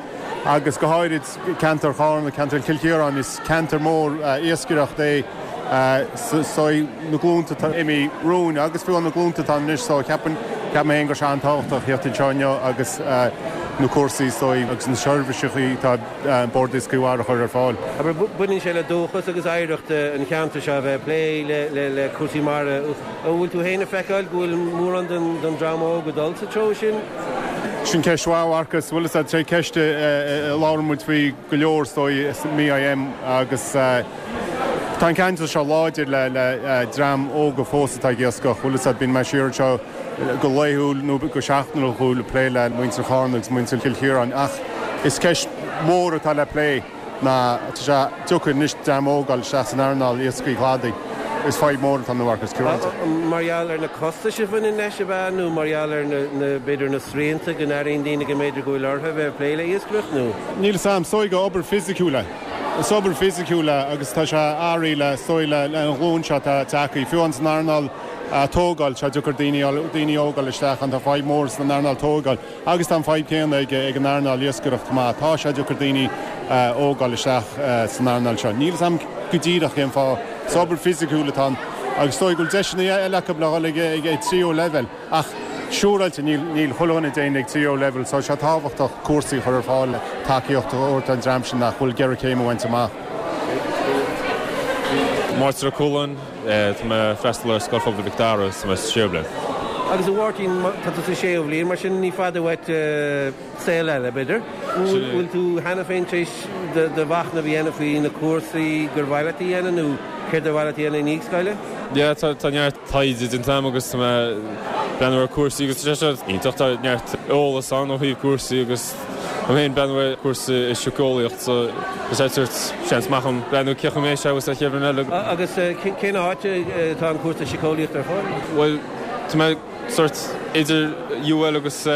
agus go háirid ceantar Charna, ceantar Chill Chiaráin, is ceantar mór iascaireachta é so na glúnta atá imithe romhainn agus fiú na glúnta atá anois so ceapaim, ceapaim féin go bhfuil sé an-tábhachtach a thíocht anseo inniu agus na cúrsaí so agus na seirbhísí atá Bord Iascaigh Mhara a chur ar fáil. Abair, baineann sé le dúchas agus oidhreacht an cheantair seo a bheith ag plé le cúrsaí mara. An bhfuil tú féin ag feiceáil go bhfuil mórán den dream óg ag dul sa treo sin? Sin ceist mhaith, a Mharcas. Bhuel, is é ceist a labhrann muid faoi go leor is dóigh i MIM agus tá an ceantar seo láidir le dream óga fós atá ag iascach. Bhuel, is bíonn mé siar anseo go laethúil nó go seachtainiúil ag plé le muintir Charna agus muintir Chill Chiaráin ach is ceist mhór atá le plé ná tá sé deacair anois dream óg a fháil isteach san earnáil iascaigh chladaigh. Is fadhb mhór atá ann a Mharcas, cinnte. Mar gheall ar na costais a bhaineann leis, ab ea, nó mar gheall ar na, b'fhéidir, na srianta go n-airíonn daoine go mb'fhéidir go bhfuil orthu a bheith ag plé le iascaireacht, nó? Níl 'fhios a'm, is dóigh gur obair fisiciúil é. Is obair fisiciúil é agus tá sé athraithe le, is dóigh, le an ghlúin seo atá tagtha. Fiú amháin san earnáil tógáil, tá sé deacair daoine, daoine óga a fháil isteach ann, tá fadhb mhór san earnáil tógáil. Agus tá an fadhb céanna ag an earnáil iascaireachta chomh maith. Tá sé deacair daoine óga a fháil isteach san earnáil seo. Níl 'fhios a'm go díreach cén fáth. Is obair fisiciúil atá ann agus is dóigh go bhfuil deiseanna eile acu le dhul ag tríú leibhéal ach siúráilte níl níl chuile dhuine ag déanamh ag tríú leibhéal so tá sé tábhachtach cúrsaí a chur ar fáil le tacaíocht a thabhairt don dream sin nach bhfuil ag iarraidh céim a bhaint amach. Máirtín Ó Cualáin. Tá mé ag freastal ar Scoil Phobail Mhic Dara agus tá mé sa séú bliain. Agus a Mháirtín, tá tú sa séú bhliain, mar sin ní fada uait saol eile, b'fhéidir. Bhfuil tú cheana féin tar éis do mhachnamh a dhéanamh faoi na cúrsaí gur mhaith leat a dhéanamh nó céard ar mhaith leat a dhéanamh i ndiaidh scoile? Yeah, tá neart taighde déanta agam agus tá mé ag breathnú ar cúrsaí agus tá sé seo iontach, tá neart eolas ann ó thaobh cúrsaí agus Tá mé féin ag breathnú ar cúrsa i síceolaíocht so is é sort seans maith agam breathnú cén chaoi a mbeidh sé agus an chéad bhliain eile. Agus cén áit atá an cúrsa síceolaíochta ar fáil? Bhuel, tá mé sort idir UL agus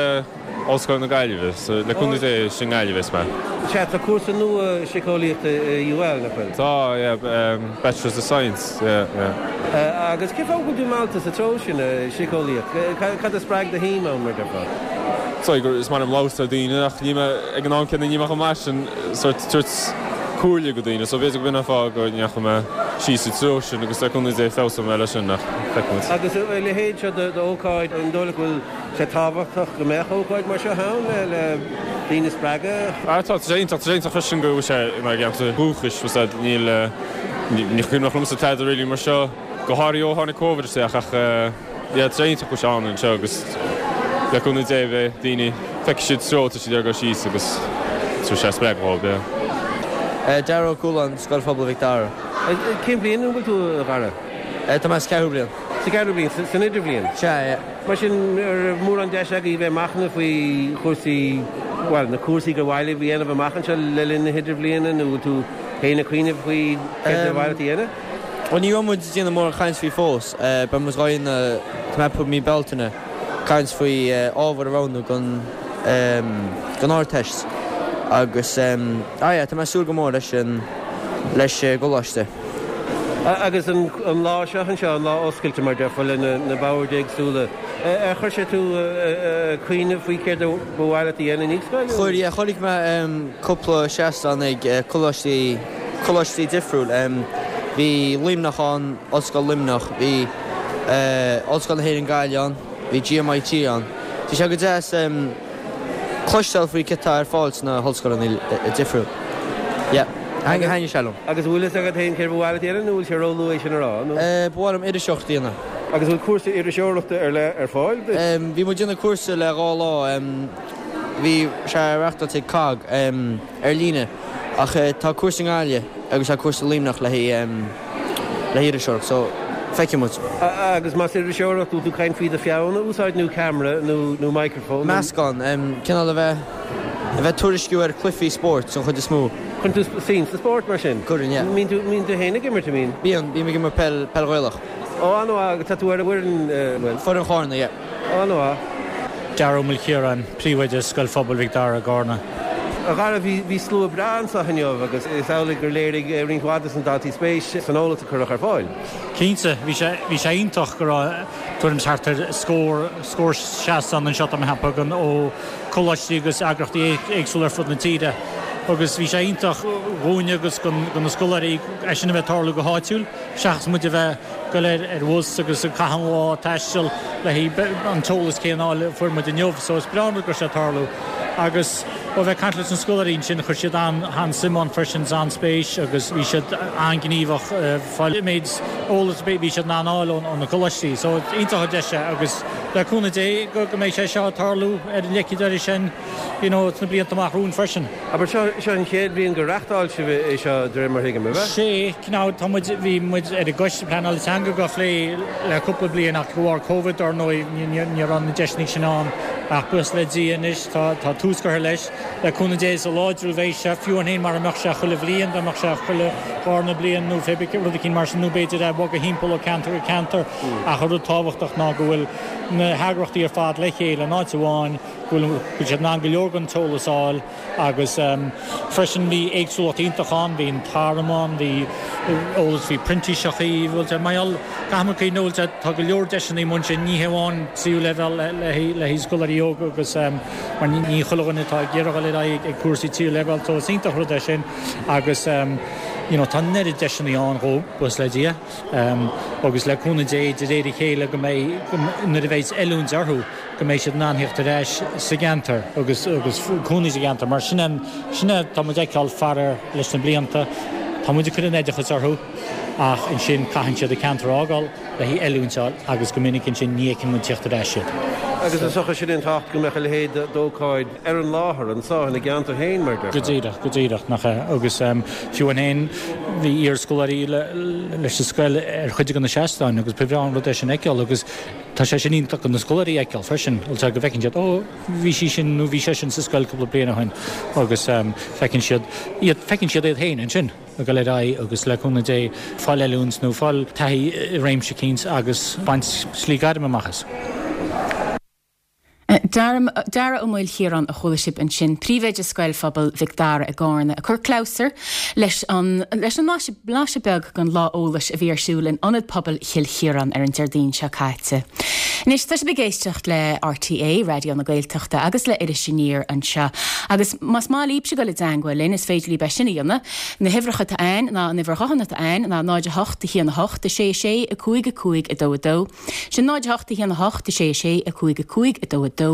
Ollscoil na Gaillimhe so le cúnamh Dé is i nGaillimh a bheas mé. Sea, tá cúrsa nua síceolaíochta i UL, nach bhfuil? Tá, yeah, Bachelors of Science, yeah, yeah. Agus cén fáth go bhfuil tú meallta sa treo sin, síceolaíocht? Cad a spreag do shuim ann, mar a déarfá? Sorry, gur is maith liom labhairt le daoine ach níl mé, ag an am céanna níl mé chomh maith sin sort tabhairt comhairle go daoine so b'fhéidir go b'in an fáth go ndeachaigh mé síos sa treo sin agus le cúnamh Dé feabhsóidh mé leis sin ach feicfidh muid. Agus a leithéid seo d'ócáid, an dóigh leat go bhfuil sé tábhachtach go mbeadh ócáid mar seo ann le daoine a spreagadh? Ah tá, tá sé iontach, tá sé iontach freisin go bhfuil sé inár gceantar dúchais, bhfuil a fhios a'd, níl, ní cuimhneach liomsa tada really mar seo, go háirithe ó tháinig Covid isteach ach yeah tá sé iontach go bhfuil sé ann anseo agus le cúnamh Dé beidh daoine, feicfidh siad treo atá siad ag dul síos agus tabharfaidh sé spreagadh dhóibh, yeah. Dara Ó Cualáin, Scoil Phobail Mhic Dara. Cén bhliain an bhfuil tú, a Dhara? Tá mé sa cheathrú bliain. Sa cheathrú bliain, san idirbhliain? Sea, yeah. Mar sin, an raibh mórán deis agaibh bheith ag machnamh faoi chúrsaí, bhuel, na cúrsaí gur mhaith libh a dhéanamh amach anseo le linn na hidirbhliana nó bhfuil tú. féin ag cuimhneamh faoi céard ba mhaith leat a dhéanamh? Bhuel, ní raibh muid ag déanamh mórán caint faoi fós. Beidh muid dhá dhéanamh, tá mé ag ceapadh mí Bealtaine, caint faoi ábhar a roghnú don don Ardteist agus ah yeah, tá mé ag súil go mór leis an leis an gcoláiste. Agus an lá seo anseo, an lá oscailte mar déarfá le na boird éagsúla, ar chuir sé tú ag cuimhneamh faoi céard a ba mhaith leat a dhéanamh i ndiaidh scoile? Chuir, yeah, chonaic mé cúpla seastán ag coláistí, coláistí difriúil. Bhí Luimneach ann, Ollscoil Luimneach, bhí Ollscoil na hÉireann Gaillimh ann, bhí GMIT ann. Bhí sé go deas cloisteáil faoi céard atá ar fáil sna hollscoileanna difriúil. Yeah, thaitnigh sé liom. Agus an bhfuil fhios agat féin céard ba mhaith leat a dhéanamh nó bhfuil sé róluath é sin a rá, nó? Ba mhaith liom iriseoireacht a dhéanamh. Agus an bhfuil cúrsa iriseoireachta ar leith ar fáil duit? Bhí muid ag déanamh cúrsa le 2 lá, bhí sé reachtáilte ag cogg ar líne ach tá cúrsa i nGaillimh agus tá cúrsa i Luimneach le haghaidh le hiriseoireacht so feicfidh muid. Agus más iriseoireacht, bhfuil tú ag caint faoi do pheann a úsáid nó ceamara nó microphone? Meascán, cineál a bheith, a bheith tuairisciú ar chluichí spóirt den chuid is mó. Cuireann tú suim sa spórt mar sin? Cuireann, yeah. Mbíonn tú, mbíonn tú féin ag imirt, an mbíonn? Bíonn, bím ag imirt peil, peil Ghaelach. Ó, an-mhaith, agus tá tú ar an bhfoireann, bhfuil? Foireann Chárna, yeah. An-mhaith. Dara Ó Maoilchiaráin, Príomhoide Scoil Phobail Mhic Dara i gCárna. A Dhara, bhí slua breá anseo inniu agus is amhlaidh gur léirigh roinnt mhaith de na daltaí spéis san eolas a cuireadh ar fáil. Cinnte, bhí sé, bhí sé iontach go raibh tuairim is thart ar scór, scór seastán anseo tá mé a cheapadh ó choláistí agus eagraíochtaí éagsúla ar fud na tíre agus bhí sé iontach dhúinne agus do na scoláirí é sin a bheith ag tarlú go háitiúil seachas muid a bheith goil ar bhus agus ag caitheamh an lá ag taisteal le haghaidh an t-eolas céanna a fháil a fuair muid inniu. So is breá an rud go raibh sé ag tarlú. Agus ó bheith ag caint leis na scoláirí ansin chuir siad an-suim ann freisin is an-spéis agus bhí siad an-ghníomhach ag fáil an méid eolas a bhí siad in ann a fháil ó na coláistí. So iontach an deis é agus le cúnamh Dé go mbeidh sé seo ag tarlú ar an leicid air sin you know sna blianta amach romhainn freisin. Abair, seo, seo an chéad bhliain gur reachtáil sibh é seo, de réir mar a thuigim, ab ea? Sea, now, tá muid, bhí muid ar an gcoiste pleanála teanga dhá phlé le cúpla bliain ach de bharr Covid, dar ndóigh, ní, ní, ní raibh na deiseanna sin ann. Ach buíochas le Dia anois, tá, tá tús curtha leis. Le cúnamh Dé, is láidriú a bheidh sé, fiú amháin mara mbeadh sé chuile bhliain, dá mbeadh sé chuile dharna bliain nó pé rud eicínt mar sin, nó b'fhéidir é a bhogadh thimpeall ó ceantar go ceantar. Ach an rud tábhachtach ná go bhfuil na heagraíochtaí ar fad le chéile in áit amháin, go bhfuil siad in ann go leor den t-eolas a fháil agus freisin bhí éagsúlacht iontach ann, bhí an t-arm ann, bhí eolas faoi printíseachaí, bhfuil sé, mar gheall, caithfidh muid cuimhneamh, bhfuil sé, tá go leor deiseanna amuigh ansin, ní hé amháin tríú leibhéal le le haghaidh scoláirí óga agus mar ní chuile dhuine atá ag iarraidh dul ar aghaidh ag cúrsaí tríú leibhéal so is iontach rud é sin agus you know tá an oiread deiseanna ann dhóibh, buíochas le Dia agus le cúnamh Dé de réir a chéile go mbeidh, nuair a bheidh oiliúint orthu. go mbeidh siad in ann theacht ar ais sa gceantar agus agus cónaí sa gceantar mar sin é sin é tá muid ag feiceáil faraor leis na blianta. Tá muid ag cur an oideachas orthu ach ansin caitheann siad an ceantar a fhágáil le haghaidh oiliúint a fháil agus go minic ansin ní fheiceann muid teacht ar ais iad. Agus is dócha sin an tábhacht go mbeadh a leithéid d'ócáid ar an láthair anseo ina gceantar féin mar Go díreach, go díreach, nach ea. Agus fiú amháin bhí iarscoláirí leis an scoil ar chuid de na seastáin agus ba bhreá an rud é sin a fheiceáil agus Tá sé sin iontach do na scoláirí a fheiceáil freisin, bhfuil sé, go bhfeiceann siad, ó, bhí sí sin nó bhí sé sin sa scoil cúpla bliain ó shin agus feiceann siad iad, feiceann siad iad féin ansin ag dul ar aghaidh agus le cúnamh Dé fáil oiliúint nó fáil taithí i réimse eicínt agus baint slí gairme amach as. Dara Ó Maoilchiaráin a chuala sibh ansin, Príomhoide Scoil Phobail Mhic Dara i gCárna, ag cur clabhsúr leis an leis an mblaiseadh beag den lá eolais a bhí ar siúl in Ionad Pobail Chill Chiaráin ar an Déardaoin seo caite. Anois, tá sibh ag éisteacht le RTÉ, Raidió na Gaeltachta, agus le Iris Aniar anseo. Agus más maith libhse dul i dteangmháil linn, is féidir libh é sin a dhéanamh. Na huimhreacha atá ann ná, an uimhir ghutháin atá ann ná 0 8 1 8 6 6 5 5 2 2. Sin 0 8 1 8 6 6 5 5 2 2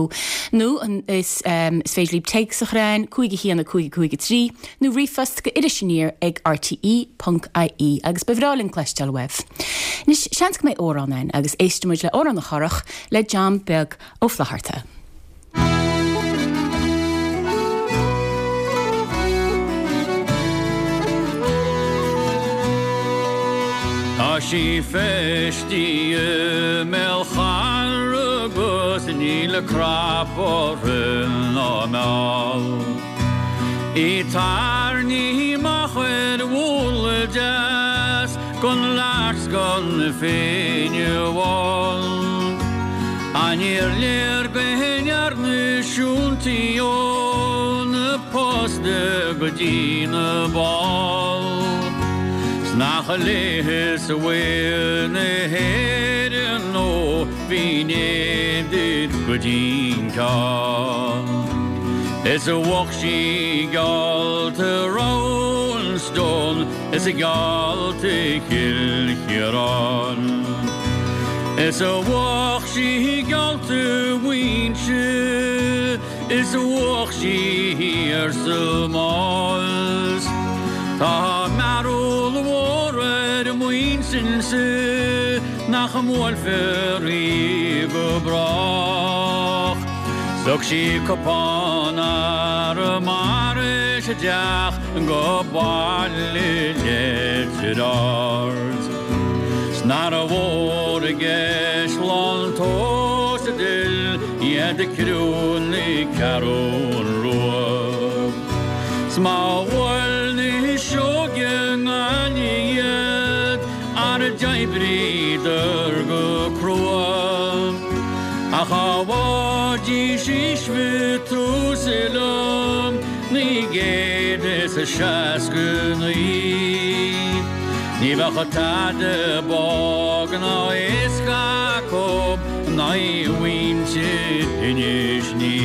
nó is is féidir libh téacs a chur chugainn 5 1 5 5 3 nó ríomhphost go irisaniar ag rte ponc ie agus ba bhreá linn cloisteáil uaibh. Anois, seans go mbeidh amhrán ann agus éistfidh muid le Amhrán na Corrach le John Beag Ó Flaithearta. Tá sí feistithe i mbéal charra agus níl cnap uirthi ná meall. Í tarraingthe amach ar. an Féinne Bhán. Ach níor léir go ndearna siúltaí ó na posta go dtí na ball. 'S nach léithe sa bhfuil na hÉireann ó bhí duit go dtí'n ceann. Is a bheadh sí geallta Roundstone is a geallta Chill Chiaráin. Is a bheadh sí geallta Mhuinseo is a bheadh sí thiar sa Mhás. Tá mearbhall mhór ar a m'intinnse nach mbuailfear í go brách. 'S thug sí cupán Arramara isteach go Baile Leitir Ard. 'S nárbh mhór i gCaisleán Tomhais a d'fhill iad ag criú na Ceathrún Rua. 'S má bhuail na sióga i nGaillimh iad, Ara d'oibríodar go crua, ach dá bhfaighidís aois Mhatúsalem 969, ní bheadh tada bog ná éasca acu in aghaidh mhuintir Inis Ní.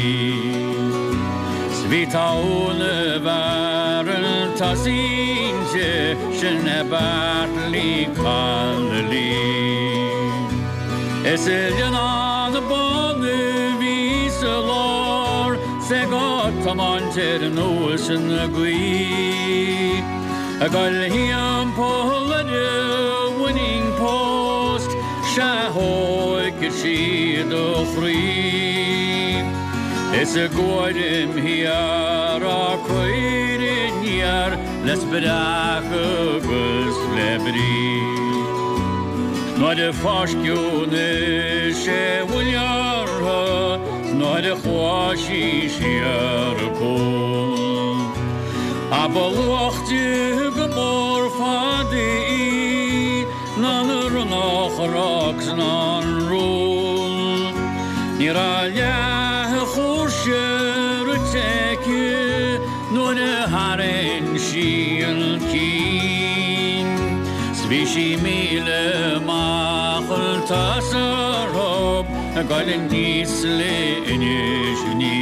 'S bhí togha na bhfear chun tosaigh inti, sin é Bartley Connolly. Is i Leannán Bán a bhí sa lár, 's é ag tiomáint ar nós na gaoithe. Ag goil thimpeall ar an winning post, sea thóigfeadh sí do chroí. Is i gcúraim thiar á cur aniar le spreacadh agus le brí. Nuair a fáisceadh na sé bhuille orthu 's nuair a chuaigh sí siar an cuan. Ach ba luachte go mór fada í ná na Ronnach Rocks ná an Rún. Ní raibh leath a chúrsa rite aici nuair a tharraing sí an cinn. 'S bhí sí 1,000 amach chun tosaigh orthu ag goil aníos le Inis Ní.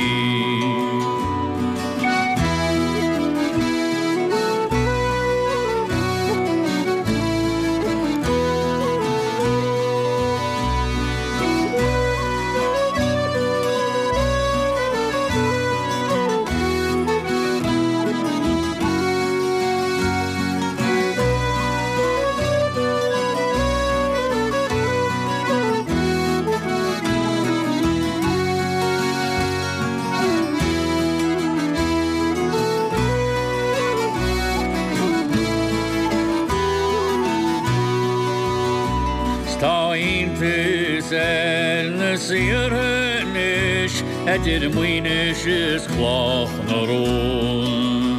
'S tá iontas ar na saortha anois idir Maínis is Cloch na Rón.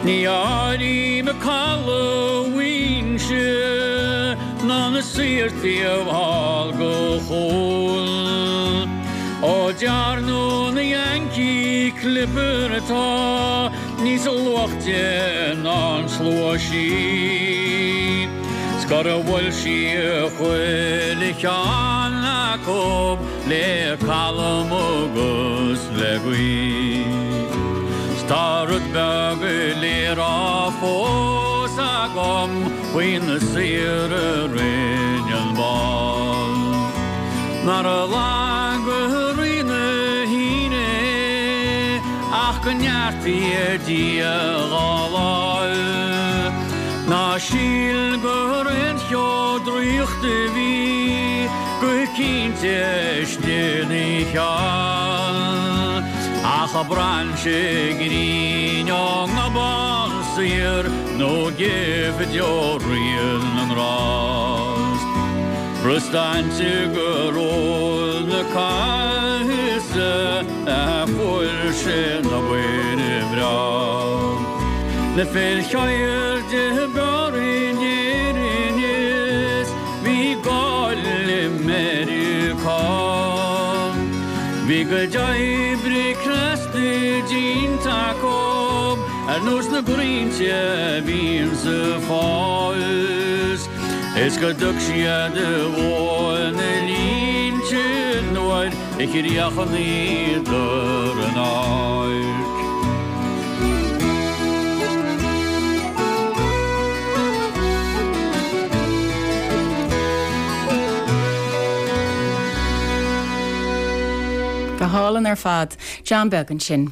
Ní áirím caladh Mhuinseo ná na saorthaí thall go Chaol. Ó dearnadh na Yankee Clipper atá níos luachte ná an slua sí. 'S gur bhuail sí chuile cheann acu le calm agus le gaoth. 'S tá rud beag le rá fós agam faoi na saoir a rinne an ball. Nár laga Rí na hAoine é ach go neartaí Dia dhá láimh. Ná síl gur aon cheo draíochta a bhí go cinnte istigh ina cheann. Ach brainse grinn ón nGobán Saor nó gift ó Rí na nGrást. Brostainte gur ó na caithise a fuair sé an obair bhreá. Na fir cheirde b'fhearr in Éirinn is. Bhí cuid oibre crosta déanta acu ar nós na gcrainnte a bhíonn sa bhfás is go dtug siad a bhó na línte nuair a chríochnaíodar an áirc. Go hálainn ar fad. John Beag ansin.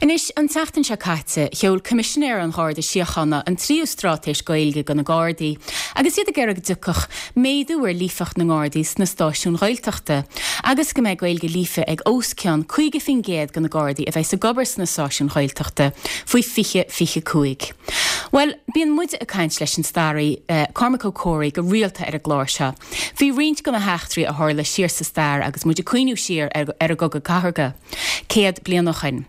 Anois, an tseachtain seo caite, sheol Coimisinéir an Gharda Síochána an tríú straitéis Gaeilge do na Gardaí agus iad ag iarraidh go dtiocfadh méadú ar líofacht na nGardaí sna stáisiúin Ghaeltachta agus go mbeidh Gaeilge líofa ag os cionn 50% de na Gardaí a bheas ag obair sna stáisiúin Ghaeltachta faoi 2025. Bhuel, bíonn muide ag caint leis an staraí Cormac Ó Comhraí go rialta ar an gclár seo faoi roinnt de na heachtraí a tharla siar sa stair agus muid ag cuimhniú siar ar an gCogadh Cathartha. 100 bliain ó shoin.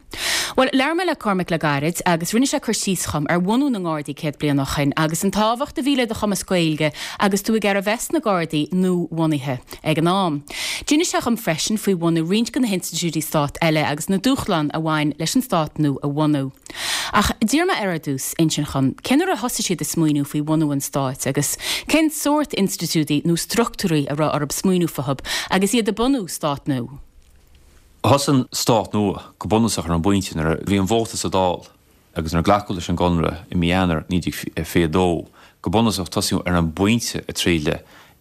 Bhuel, labhair mé le Cormac le gairid agus rinne sé cur síos dhom ar bhunú na nGardaí 100 bliain ó shoin agus an tábhacht a bhí le do chumas Gaeilge agus tú ag iarraidh a bheith sna Gardaí nua-bhunaithe ag an am. D'inis sé dhom freisin faoi bhunú roinnt de na hinstitiúidí stáit eile agus na dúshláin a bhain leis an stát nua a bhunú. Ach d'iarr mé air ar dtús insint dhom cén uair a thosaigh siad ag smaoineamh faoi bhunú an stáit agus cén sórt institiúidí nó struchtúirí a raibh orthu smaoineamh fúthu agus iad ag bunú stát nua. Thosaigh an stát nua go bunúsach ar an bpointe nuair a bhí an vóta sa Dáil agus nuair a glacadh leis an gConradh i mí Eanáir 1922. Go bunúsach tosaíodh ar an bpointe ag triail le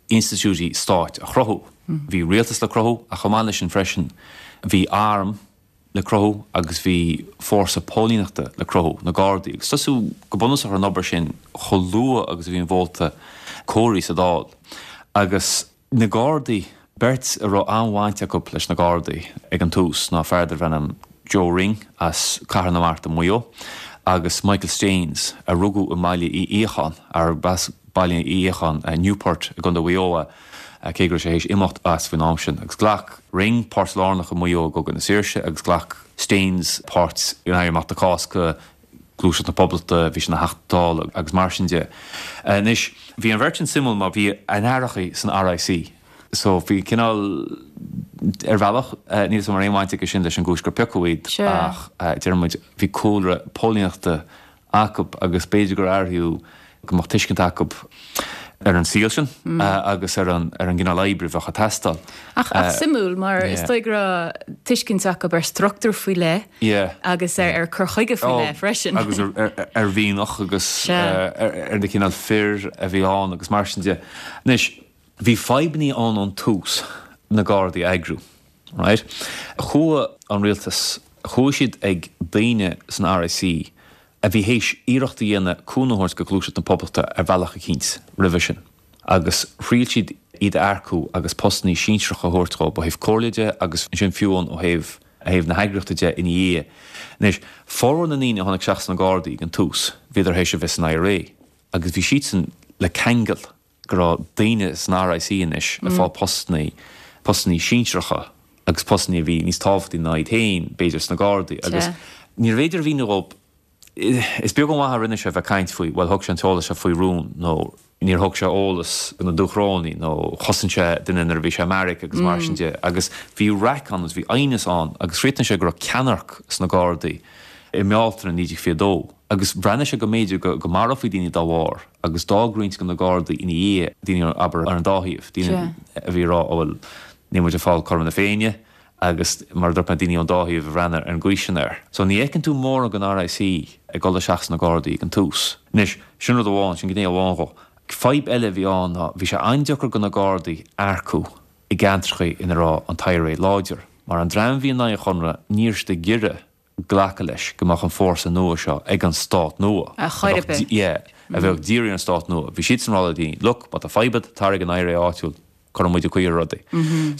institiúidí stáit a chruthú. Bhí rialtas le cruthú ach chomh maith leis sin freisin bhí arm le cruthú agus bhí fórsa póilíneachta le cruthú, na Gardaí. Agus tosaíodh go bunúsach ar an obair sin chomh luath agus a bhí an vóta comhairithe sa Dáil agus. Na Gardaí, beirt a raibh an-bhaint acu leis na Gardaí ag an tús ná fear darbh ainm Joe Ring as Cathair na Mart i Maigh Eo agus Michael Staines a rugadh i mBaile Uí Fhiacháin, arb as Baile Uí Fhiacháin, Newport i gContae Mhaigh Eo é, cé go raibh sé théis imeacht as faoin am sin. Agus ghlac Ring páirt lárnach i Maigh Eo i gCogadh na Saoirse agus ghlac Staines páirt in Éirí Amach na Cásca, Gluaiseacht na Poblachta, bhí sé ina Theachta Dála agus mar sin de. Anois, bhí an bheirt sin suimiúil mar bhí a n-aithreachaí san RIC so bhí cineál, ar bhealach, níl 'fhios a'm an raibh aon bhaint aige sin leis an gcúis gur piocadh iad ach deir muid, bhí cúlra póilíneachta acu agus b'fhéidir gur áiríodh go mbeadh tuiscint acu ar an saol sin agus ar an ar an gcineál oibre a bheadh ag teastáil. Ach ach suimiúil mar is dóigh go raibh tuiscint acu ar struchtúr faoi leith agus ar ar cur chuige faoi leith freisin. Agus ar mhianach agus ar na cineál fir a bhí ann agus mar sin de. Anois, bhí fadhbannaí ann ón tús na Gardaí a eagrú, right? Chuaigh an rialtas, chuaigh siad ag daoine san RIC a bhí théis iarracht a dhéanamh cúnamh a thabhairt go Gluaiseacht na Poblachta ar bhealach eicínt roimhe sin, agus thriail siad iad a earcú agus postannaí sinsearacha a thabhairt dhóibh ó thaobh comhairle de agus ansin fiú amháin ó thaobh thaobh na heagraíochta de ina dhiaidh. Anois, formhór na ndaoine a tháinig isteach sna Gardaí ag an tús, bhíodar théis a bheith san IRA agus bhí siadsan le ceangal go raibh daoine san RIC anois ag fáil postannaí, postannaí sinsearacha agus postannaí a bhí níos tábhachtaí ná iad féin, b'fhéidir, sna Gardaí agus níorbh fhéidir a mhíniú dhóibh, is beag an mhaith a rinne sé bheith ag caint faoi, bhuel thug sé an t-eolas seo faoi rún nó níor thug sé eolas do na Dúchrónaigh nó chosain sé duine nuair a bhí sé i mbeairic agus mar sin de agus bhí raic ann agus bhí aighneas ann agus chríochnaigh sé go raibh ceannairc sna Gardaí i mBealtaine 1922 agus bhreathnaigh sé go mb'fhéidir go marófaí daoine dá bharr. agus d'fhág roinnt de na Gardaí ina dhiaidh, daoine, abair, ar an dá thaobh, daoine a bhí ag rá, ó bhuel, níl muid ag fáil cothrom na Féinne agus mar a dúirt mé, daoine ón dá thaobh a bhreathnaigh ar an gcaoi sin air. So ní fheiceann tú mórán den RIC ag dul isteach sna Gardaí ag an tús. Anois, sin rud amháin, sin gné amháin dhó. Fadhb eile a bhí ann ná bhí sé an-deacair do na Gardaí earcú i gceantracha ina raibh an t-IRA láidir, mar an dream a bhí in aghaidh an Chonradh, ní raibh siad ag iarraidh glacadh leis go mbeadh an fórsa nua seo ag an stát nua. Ar chor ar bith. Yeah, a bheadh dírithe ar an stát nua. Bhí siadsan ag rá le daoine, look, má tá fadhb agat, tar ag an IRA áitiúil, cuirfidh muid caoi ar rudaí.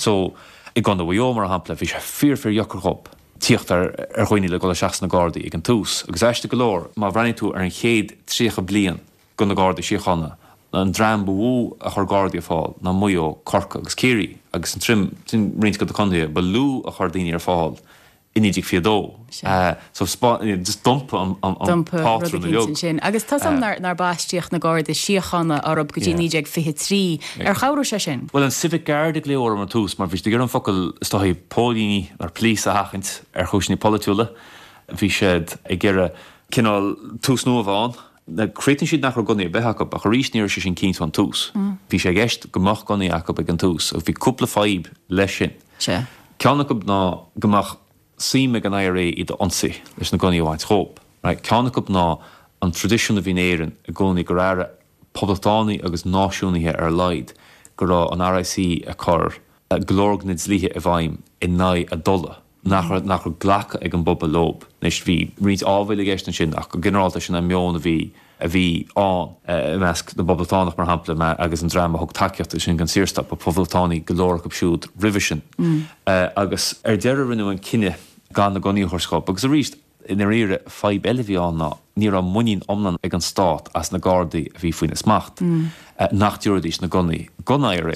So, i gContae Mhaigh Eo, mar shampla, bhí sé fíor fíor dheacair dhób tíocht ar ar dhaoine le dul isteach sna Gardaí ag an tús. Agus aisteach go leor, má bhreathnaíonn tú ar an chéad 30 bliain de na Gardaí Síochána, an dream ba mhó a chuir Gardaí ar fáil ná Maigh Eo, Corcaigh agus Ciarraí, agus an trim, sin roinnt de na contaetha ba lú a chuir daoine ar fáil. I 1922. So just d'iompaigh an pátrún uilig. Ansin. Agus tá 's a'm nár baistíodh na Garda Síochána orthu go dtí 1923. Ar chabhraigh sé sin? Bhuel, an Civic Guard a glaodh orthu ar tús mar bhí siad ag iarraidh an focal is dóigh póilíní nó police a sheachaint ar chúiseanna polaitiúla. Bhí siad ag iarraidh cineál tús nua a bheith ann. Chríochnaigh siad nach raibh gunnaí ar bith acu ach arís ní raibh sé sin cinnte ón tús. Bhí sé i gceist go mbeadh gunnaí acu ag an tús agus bhí cúpla fadhb leis sin. Ceann acu ná go mbeadh suim ag an IRA iad a ionsaí leis na gunnaí a bhaint dhób. Right. Ceann acu ná an traidisiún a bhí in Éirinn i gcónaí gur airigh poblachtánaigh agus náisiúnaithe ar a laghad go raibh an RIC ag cur go leor de na dlíthe i bhfeidhm in aghaidh a dtola, nach raibh nach raibh glacadh ag an bpobal leob. Anois bhí roinnt áibhéil i gceist ansin ach go ginearálta sin an meon a bhí a bhí ann i measc na bPoblachtánach, mar shampla, agus an dream a thug tacaíocht ansin don Saorstát, ba Phoblachtánaigh go leor acu siúd roimhe sin. Agus ar deireadh rinneadh an cinneadh gan na gunnaí a thabhairt dhób. Agus arís, i ndáiríre, fadhb eile a bhí ann ná ní raibh muinín iomlán ag an Stát as na Gardaí a bhí faoina smacht, nach dtabharfaidís na gunnaí don IRA.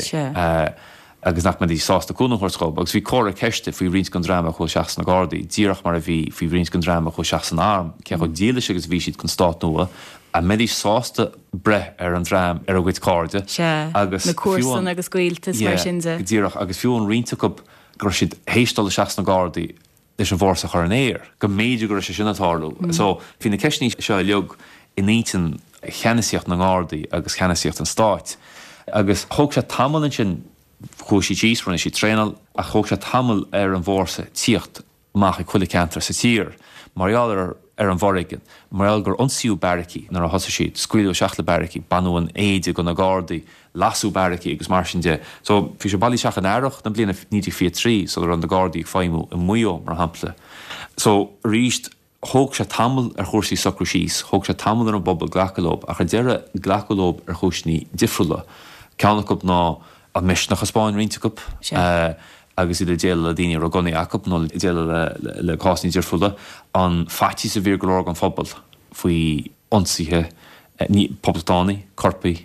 agus nach mbeidís sásta cúnamh a thabhairt dhób, agus bhí comhartha ceiste faoi roinnt den dream a chuaigh isteach sna Gardaí, díreach mar a bhí faoi roinnt den dream a chuaigh isteach san arm, cé chomh dílis agus a bhí siad don stát nua, an mbeidís sásta breith ar an dream, ar a gcuid cairde, Sea, agus na fiú an. comharsana agus gaolta is mar Yeah, sin de. go díreach, agus fiú an roinnt acu go raibh siad théis dul isteach sna Gardaí leis an bhfórsa a chur in aer, go mb'fhéidir go raibh sé sin ag tarlú. So, bhí na ceisteanna seo uilig in intinn cheannasaíocht na nGardaí agus cheannasaíocht an stáit. Agus thóg sé tamall ansin, chuaigh siad síos, rinne siad traenáil, ach thóg sé tamall ar an bhfórsa tíocht amach ag chuile cheantar sa tír mar gheall ar ar an bhforéigean, mar gheall gur ionsaíodh beairicí nuair a thosaigh siad, scaoileadh isteach le beairicí, baineadh an éide de na Gardaí, lasadh beairicí agus mar sin de. So, bhí sé bailithe isteach in earrach na bliana 1923 sula raibh na Gardaí ag feidhmiú i Maigh Eo, mar shampla. So, arís, thóg sé tamall ar chúrsaí socrú síos, thóg sé tamall ar an bpobal glacadh leob, ach ar deireadh glacadh leob ar chúiseanna difriúla. Ceann acu ná an misneach a 'spáin roinnt acu agus iad ag déileáil le daoine a raibh gunnaí acu nó ag déileáil le cásanna difriúla, an faitíos a bhí ar go leor den phobal faoi ionsaithe poblachtánaigh, coirpigh,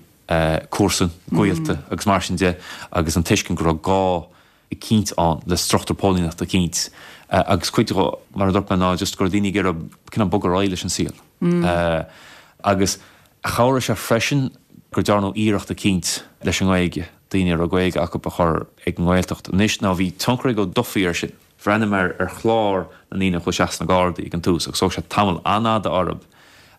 comharsan, gaolta agus mar sin de agus an tuiscint go raibh gá eicínt ann le struchtúr póilíneachta eicínt agus cuid de, mar a dúirt mé, ná just go raibh daoine ag iarraidh cineál bogadh ar aghaidh leis an saol. Agus chabhraigh sé freisin gur dearnadh iarracht eicínt leis an nGaeilge, daoine a raibh Gaeilge acu a chur ag an nGaeltacht. Anois now bhí tionchar ag Ó Dufaigh air sin. Bhreathnaigh mé ar chlár na ndaoine a chuaigh isteach sna Gardaí ag an tús agus thóg sé tamall an-fhada orthu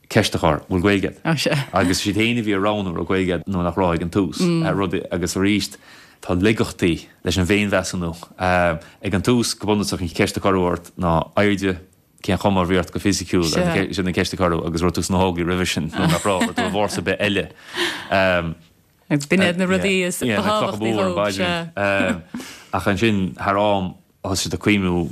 ceist a chur, bhfuil Gaeilge agat? Agus siad féin a bhí ag roghnú an raibh Gaeilge agat nó nach raibh ag an tús. Rud, agus arís tá laigeachtaí leis an bhféinmheasúnú. Ag an tús, go bunúsach, an cheist a cuireadh ort ná airde, cén chuma a bhí ort go fisiciúil, sin an ceist a cuireadh agus raibh tú sna hÓglaigh roimhe sin nó nach raibh, raibh tú i bhfórsa ar bith eile. Agus b'in iad na rudaí is ba thábhachtaí dhóibh, sea. Ach ansin, thar am, thosaigh siad ag cuimhniú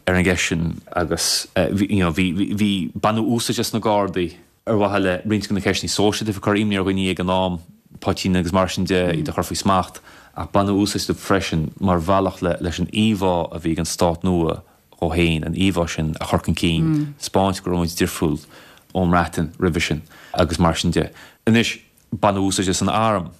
ar an gceist sin agus you know bhí, bhí, baineadh úsáid as na Gardaí ar mhaithe le roinnt de na ceisteanna sóisialta a bhí ag cur imní ar dhaoine ag an am, poitín agus mar sin de, iad a chur faoi smacht, ach baineadh úsáid astu freisin mar bhealach le, leis an íomhá a bhí ag an stát nua dhó féin, an íomhá sin a chur chun cinn, 'spáint go raibh muid difriúil ón mBreatain roimhe sin agus mar sin de. Anois. Baineadh úsáid as an arm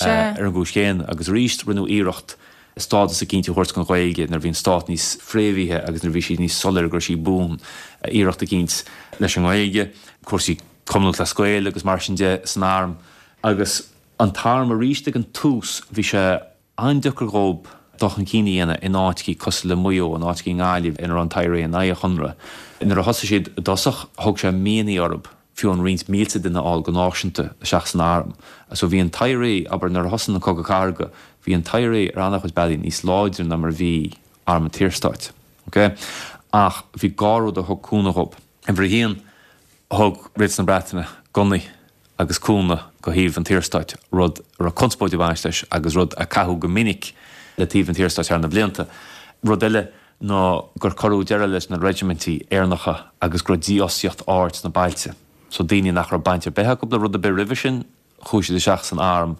ar an gcúis chéanna agus arís rinneadh iarracht stádas eicínt a thabhairt don Ghaeilge nuair a bhí an stát níos fréamhaithe agus nuair a bhí sé níos soiléire go raibh sí buan. Iarracht eicínt leis an nGaeilge, cúrsaí Cumann Lúthchleas Gael agus mar sin de san arm agus an t-arm arís ag an tús bhí sé an-deacair dhób dul chun cinn a dhéanamh in áiteachaí cosúil le Maigh Eo, in áiteachaí i nGaillimh ina raibh an t-IRA in aghaidh an Chonradh. Nuair a thosaigh siad i dtosach, thóg sé míonna orthu fiú amháin roinnt mílte duine a fháil go náisiúnta isteach san arm. So bhí an t-IRA, abair, nuair a thosaigh an Cogadh Cathartha, bhí an t-IRA ar an-chuid bealaí níos láidre ná mar a bhí arm an tSaorstáit. Ok? Ach bhí dhá rud a thug cúnamh dhób. Uimhir a haon, Thug Rialtas na Breataine gunnaí agus cúnamh go thaobh an tSaorstáit, rud a raibh conspóid ag baint leis agus rud a caitheadh go minic le taobh an tSaorstáit thar na blianta. Rud eile ná gur cuireadh deireadh leis na reisimintí Éireannacha agus go raibh dífhostaíocht ard sna bailte. So daoine nach raibh baint ar bith acu le rud ar bith roimhe sin, chuaigh siad isteach san arm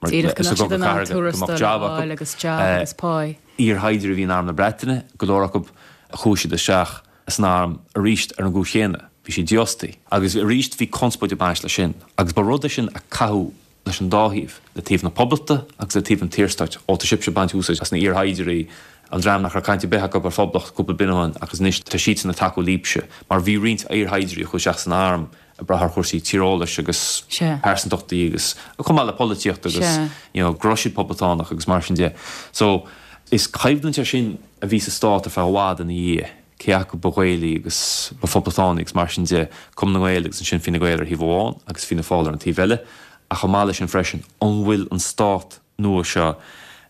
mar Díreach go mbeadh siad in ann tuarastal a fháil agus job agus pá. Iarshaighdiúirí a bhí in arm na Breataine, go leor acu, chuaigh siad isteach san arm arís ar an gcúis chéanna, bhí siad dífhostaithe. Agus arís bhí conspóid ag baint leis sin. Agus ba rud é sin a caitheadh leis an dá thaobh, le taobh na Poblachta agus le taobh an tSaorstáit. Ó, tá sibhse ag baint úsáid as na iarshaighdiúirí. An dream nach raibh caint ar bith acu ar phoblacht cúpla bliain ó shin agus anois tá siadsan ag tacú libhse mar bhí roinnt iarshaighdiúirí a chuaigh isteach san arm ag brath ar chúrsaí tíreolais agus pearsantachtaí agus chomh maith le polaitíocht agus you know go raibh siad poblachtánach agus mar sin de. So is coimhlint é sin a bhí sa stát ar feadh i bhfad ina dhiaidh, cé acu ba Ghaelaí agus ba phoblachtánaí agus mar sin de, Cumann na nGael agus ansin Fine Gael ar thaobh amháin agus Fianna Fáil ar an taobh eile ach chomh maith leis sin freisin an bhfuil an stát nua seo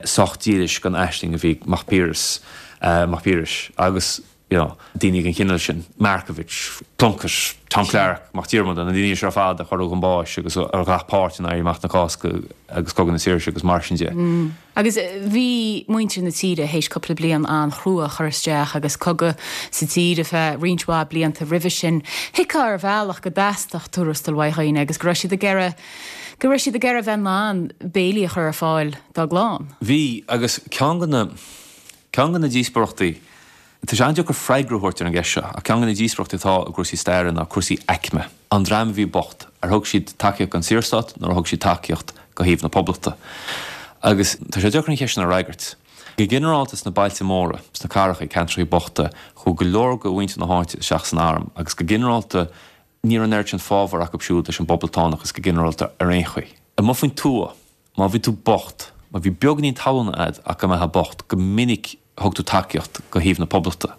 sách dílis don aisling a bhí ag Mac Piarais, Mac Piarais agus you know daoine den chineál sin, Markievicz, Plunkett, Tom Clarke, Mac Diarmada, na daoine seo ar fad a cuireadh chun báis agus a ghlac páirt in Éirí Amach na Cásca agus Cogadh na Saoirse agus mar sin de. Agus bhí muintir na tíre théis cúpla bliain an-chrua a chur isteach agus cogadh sa tír ar feadh roinnt mhaith blianta roimhe sin. Thuigfeá ar bhealach go dteastódh tuarastal uaidh dhaoine agus go raibh siad ag iarraidh go raibh siad ag iarraidh bheith in ann béilí a chur ar fáil dá gclann. Bhí, agus ceann de na, ceann de na díospóireachtaí, tá sé an-deacair freagra a thabhairt ar an gceist seo, ach ceann de na díospóireachtaí atá i gcúrsaí staire ná cúrsaí aicme. An dream a bhí bocht, ar thug siad tacaíocht don Saorstát nó ar thug siad tacaíocht do thaobh na Poblachta? Agus tá sé deacair an cheist sin a fhreagairt. Go ginearálta sna bailte móra, sna cathracha, ceantracha bochta, chuaigh go leor de mhuintir na háite isteach san arm agus go ginearálta, Ní raibh an oiread sin fábhar acu siúd leis an bpoblachtánachas go ginearálta ar aon chaoi. Amuigh faoin tuath, má bhí tú bocht, má bhí beagáinín talún a'd ach go mbeifeá bocht, go minic thug tú tacaíocht go thaobh na poblachta.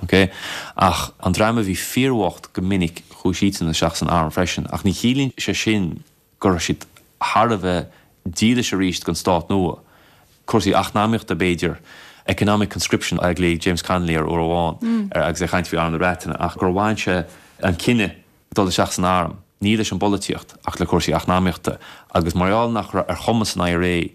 Ok? Ach an dream a bhí fíorbhocht, go minic chuaigh siadsan isteach san arm freisin. Ach ní chiallaíonn sé sin go raibh siad thar a bheith dílis arís don stát nua. Cúrsaí eacnamaíochta b'fhéidir, economic conscription a ghlaoigh James Connolly air uair amháin agus é ag caint faoi Arm na Breataine, ach gur bhain sé an cinneadh dul isteach san arm, ní leis an bpolaitíocht ach le cúrsaí eacnamaíochta agus mar gheall nach raibh ar chumas an IRA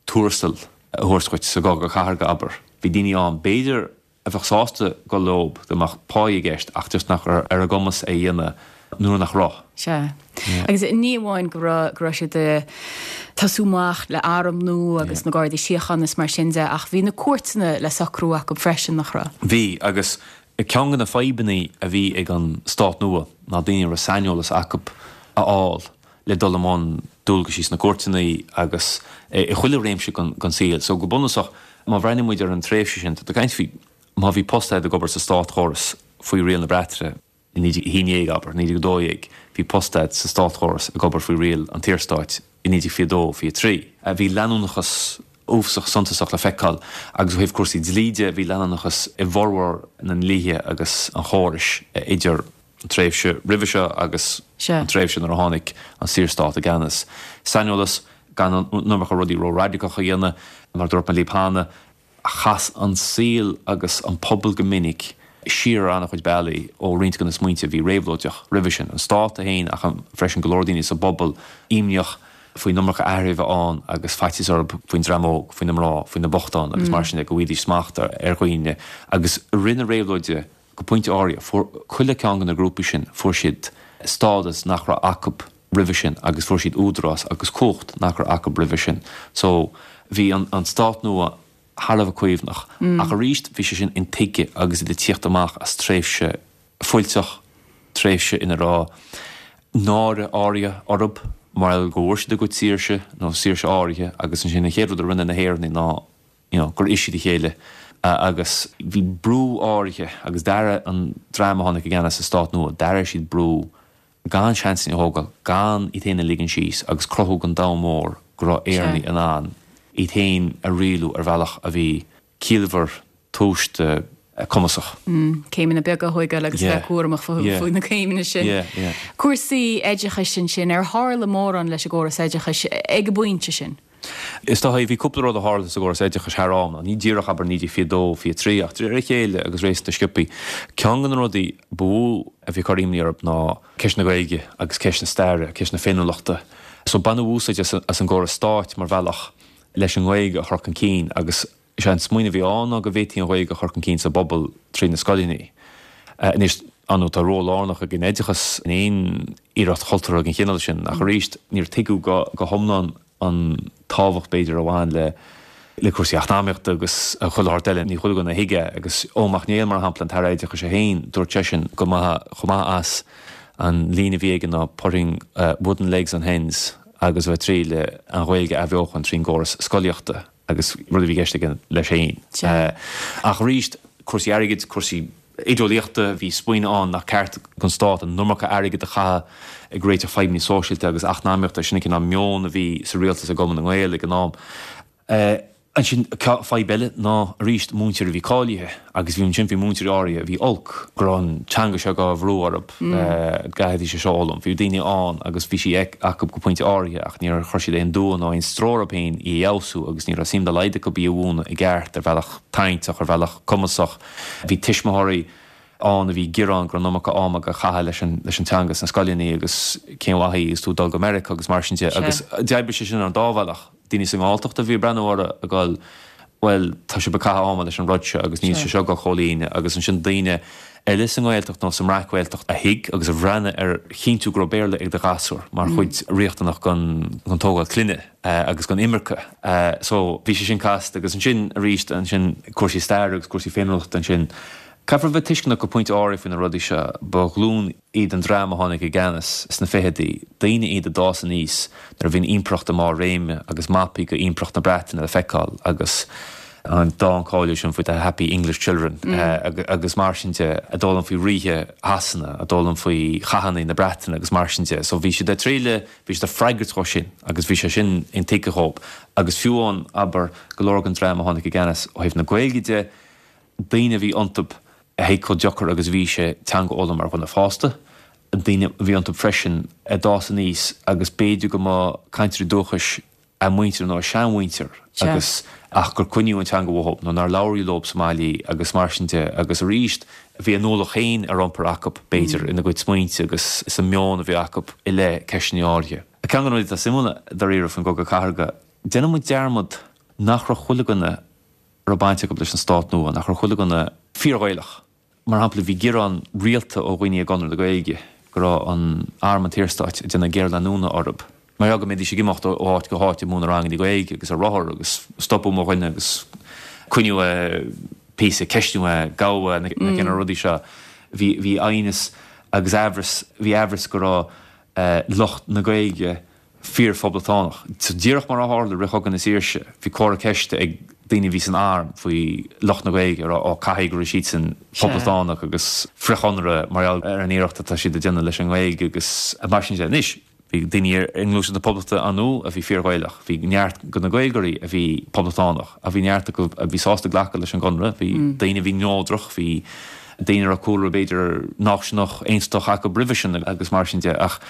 tuarastal a thabhairt dhuit sa gCogadh Cathartha, abair. Bhí daoine ann, b'fhéidir, a bheadh sásta dul leob dá mbeadh pá i gceist ach just nach raibh ar a gcumas é a dhéanamh nuair nach raibh. Sea. Agus ní amháin go raibh, go raibh siad ag tosú amach le arm nua agus na Gardaí Síochána is mar sin de ach bhí na cúirteanna le socrú acu freisin, nach raibh? Bhí, agus ceann de na fadhbanna a bhí ag an stát nua ná daoine a raibh saineolas acu a fháil le dul i mbun dualgaisí sna cúirteanna agus i chuile réimse den saol. So go bunúsach, má bhreathnaíonn muid ar an tréimhse sin, tá tú ag caint faoi má bhí post agat ag obair sa státchóras faoi riail na Breataine i 1911, abair, 1912, bhí post agat sa státchóras ag obair faoi riail an tSaorstáit i 1922, 23. Bhí leanúnachas uafasach suntasach le feiceáil agus ó thaobh cúrsaí dlí de, bhí leanúnachas i bhformhór na ndlíthe agus an chórais idir an tréimhse roimhe seo agus an tréimhse nuair a tháinig an Saorstát i gceannas. Saineolas, gan an iomarca rudaí ró-raidiceach a dhéanamh, mar a dúirt mé libh cheana, chas an saol agus an pobal go minic siar ar an-chuid bealaí ó roinnt de na smaointe a bhí réabhlóideach roimhe sin, an stát é féin ach freisin go leor daoine sa bpobal imníoch faoin iomarca athraithe a bheith ann agus faitíos orthu faoin dream óg, faoi na mná, faoi na bochtáin agus mar sin de, go bhfaighidís smacht ar dhaoine agus i rith na réabhlóide Go pointe áirithe, fuair chuile cheann de na grúpaí sin, fuair siad stádas nach raibh acu roimhe sin agus fuair siad údarás agus cumhacht nach raibh acu roimhe sin. So, bhí an stát nua thar a bheith caomhnach. Ach arís, bhí sé sin intuigthe agus iad ag tíocht amach as tréimhse fuilteach, tréimhse ina raibh náire áirithe orthu mar gheall go bhfuair siad a gcuid saoirse, nó saoirse áirithe, agus ansin an chéad rud a rinne na hÉireannaigh ná you know, gur ith siad a chéile agus bhí brú áirithe agus d'airigh an dream a tháinig i gceannas sa stát nua, d'airigh siad brú gan seansanna a thógáil, gan iad féin a ligean síos agus cruthú don domhan mór go raibh Éireannaigh in ann iad féin a rialú ar bhealach a bhí ciallmhar, tomhaiste, cumasach. Céimeanna beaga a thógáil agus bheith cúramach faoi na céimeanna sin. Cúrsaí oideachais ansin, ar tharla mórán leis an gcóras oideachais ag an bpointe sin? Is dóigh, bhí cúpla rud a tharla sa gcóras oideachais thar am, ní díreach, abair, 1922, 23, ach de réir a chéile agus réasúnta sciobthaí. Ceann de na rudaí ba mhó a bhí ag cur imní orthu ná ceist na Gaeilge agus ceist na staire, ceist na féiniúlachta. So baineadh úsáid as an gcóras stáit mar bhealach leis an nGaeilge a chur chun cinn agus is é an smaoineamh a bhí ann ná go bhféadfaí an Ghaeilge a chur chun cinn sa bpobal trí na scoileanna. Anois, ar ndóigh, tá ról lárnach ag an oideachas in aon iarracht chultúrtha den chineál sin, ach arís, níor tuigeadh go hiomlán an tábhacht, b'fhéidir, a bhain le le cúrsaí eacnamaíochta agus chuile shórt eile. Ní chuile dhuine a thuig é. Agus Eoin Mac Néill, mar shampla, an tAire Oideachais é féin, dúirt seisean go mba chomh maith as an líne a bhí aige ná putting wooden legs on hens agus a bheith ag triail an Ghaeilge a athbheochan trín gcóras scolaíochta. agus rud a bhí i gceist aige leis féin. Ach arís, cúrsaí airgid, cúrsaí oideolaíochta, bhí smaoineamh ann nach ceart don stát an iomarca airgid a chaitheamh ag réiteach fadhbanna sóisialta agus eacnamaíochta, sin an cineál meon a bhí sa rialtas i gCumann na nGael ag an am. Ansin, fadhb eile ná arís múinteoirí a bhí cáilithe agus bhí ansin, bhí múinteoirí áirithe a bhí olc go raibh an teanga seo á bhrú orthu, go gcaithfidís é seo a fhoghlaim. Bhí daoine ann agus bhí sí acu go pointe áirithe ach níor chuir siad aon dua nó aon stró orthu féin í a fheabhsú agus ní raibh suim dá laghad acu í a mhúineadh i gceart ar bhealach tarraingteach, ar bhealach cumasach. Bhí tuismitheoirí ann a bhí ag gearán go raibh an iomarca ama á chaitheamh leis an leis an teanga sna scoileanna agus cén mhaith í agus tú ag dul go Meiriceá agus mar sin de agus d'oibrigh sé sin ar an dá bhealach. Daoine sa nGalltacht a bhí ag breathnú orthu ag dul bhuel tá sibh ag caitheamh ama leis an rud seo agus níl sé seo ag dul chomhlíonadh agus ansin daoine eile sa nGaeltacht nó sa mBreac-Ghaeltacht a thuig agus a bhreathnaigh ar chinntiú go raibh Béarla ag do ghasúr mar chuid riachtanach den tógáil clainne. agus den imirce. So, bhí sé sin casta agus ansin arís ansin cúrsaí staire agus cúrsaí féiniúlachta ansin. Caithfear a bheith tuisceanach go pointe áirithe faoi na rudaí seo. Ba ghlúin iad an dream a tháinig i gceannas sna fichidí, daoine iad a d'fhás aníos nuair a bhí an impireacht i mbarr réime agus mapaí de impireacht na Breataine le feiceáil agus an dán cáiliúil sin faoi the happy English children agus mar sin de, a d'fhoghlaim faoi ríthe Shasana, a d'fhoghlaim faoi chathanna na Breataine agus mar sin de. So bhí siad ag triail Bhí siad ag freagairt dhó sin agus bhí sé sin intuigthe dhóibh. Agus fiú amháin, abair, go leor den dream a tháinig i gceannas ó thaobh na Gaeilge de, daoine a bhí iontu a thuig chomh deacair agus a bhí sé teanga a fhoghlaim mar dhuine fásta, daoine a bhí iontu freisin a d'fhás aníos agus b'fhéidir go mba cainteoirí dúchais a muintir nó a seanmhuintir agus ach gur coinníodh an teanga uathu nó nár labhraíodh leo sa mbaile í agus mar sin de agus arís bhí a n-ualach féin ar iompar acu b'fhéidir ina gcuid smaointe agus sa meon a bhí acu i leith ceisteanna áirithe. Ceann de na rudaí atá suimiúil dáiríre faoin gCogadh Cathartha, déanann muid dearmad nach raibh chuile dhuine a raibh baint acu leis an stát nua, nach raibh chuile dhuine fíor-Ghaelach. Mar shampla, bhí gearán rialta ó dhaoine i gConradh na Gaeilge go raibh an Arm an tSaorstáit ag déanamh géarleanúna orthu mar gheall go mbeidís ag imeacht ó áit go háit ag múineadh ranganna Gaeilge agus ar rothar agus stopadh mo dhuine agus coinniú é píosa, ceistiú é, gabhadh é, na cineál rudaí seo. Bhí bhí aighneas agus aimhreas, bhí aimhreas go raibh lucht na Gaeilge fíor-phoblachtánach. So díreach mar a tharla i rith Chogadh na Saoirse, bhí comhartha ceiste ag daoine a bhí san arm faoi lucht na Gaeilge, a rá, ó, caithfidh go raibh siadsan poblachtánach agus frith-Chonradh mar gheall ar an iarracht atá siad ag déanamh leis an nGaeilge agus mar sin de. Anois, bhí daoine i nGluaiseacht na Poblachta ar ndóigh a bhí fíor-Ghaelach, bhí neart de na Gaeilgeoirí a bhí poblachtánach, ach bhí neart acu a bhí sásta glacadh leis an gConradh, bhí daoine a bhí neodrach, bhí daoine a raibh cúlra b'fhéidir náisiúnach, aontachtach acu roimhe sin agus mar sin de ach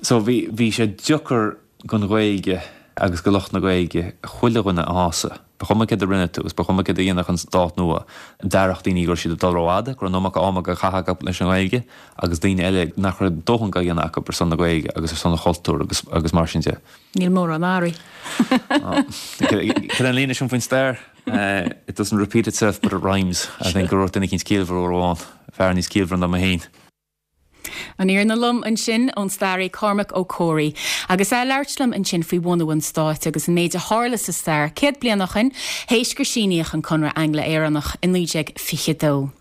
so bhí, bhí sé deacair don Ghaeilge agus do lucht na Gaeilge chuile dhuine a shásamh. Ba chuma céard a rinne tú agus ba chuma céard a dhéanfadh an stát nua, d'airigh daoine go raibh siad ag dul rófhada, go raibh an iomarca ama á chaitheamh acu leis an nGaeilge agus daoine eile nach raibh dóthain á dhéanamh acu ar son na Gaeilge agus ar son an chultúir agus, agus mar sin de. Níl mórán athraithe. Cad é an líne sin faoin stair? It doesn't repeat itself but it rhymes. I think a dúirt duine eicínt ciallmhar uair amháin, fear níos ciallmhaire ná mé féin. An fhírinne lom ansin ón staraí Cormac Ó Comhraí agus é ag labhairt liom ansin faoi bhunú an stáit agus an méid a tharla sa stair 100 bliain ó shin, théis gur síníodh an Conradh Angla-Éireannach i 1922.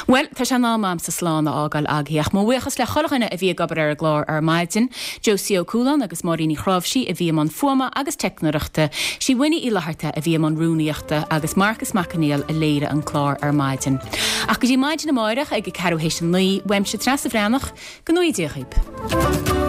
Bhuel, tá sé in am a'msa slán a fhágáil agaibh, ach mo bhuíochas le chuile dhuine a bhí ag obair ar an gclár ar maidin, Josie Ó Cualáin agus Máirín Ní Chráimhsí a bhí i mbun fuaime agus teicneoireachta, sí Winnie Uí Fhlatharta a bhí i mbun rúnaíochta agus Marcas Mac Conghail a léirigh an clár ar maidin. Ach go dtí maidin amáireach ag a ceathrú théis a 9, uaimse Treasa Bhreathnach, go ngnóthaí Dia dhaoib.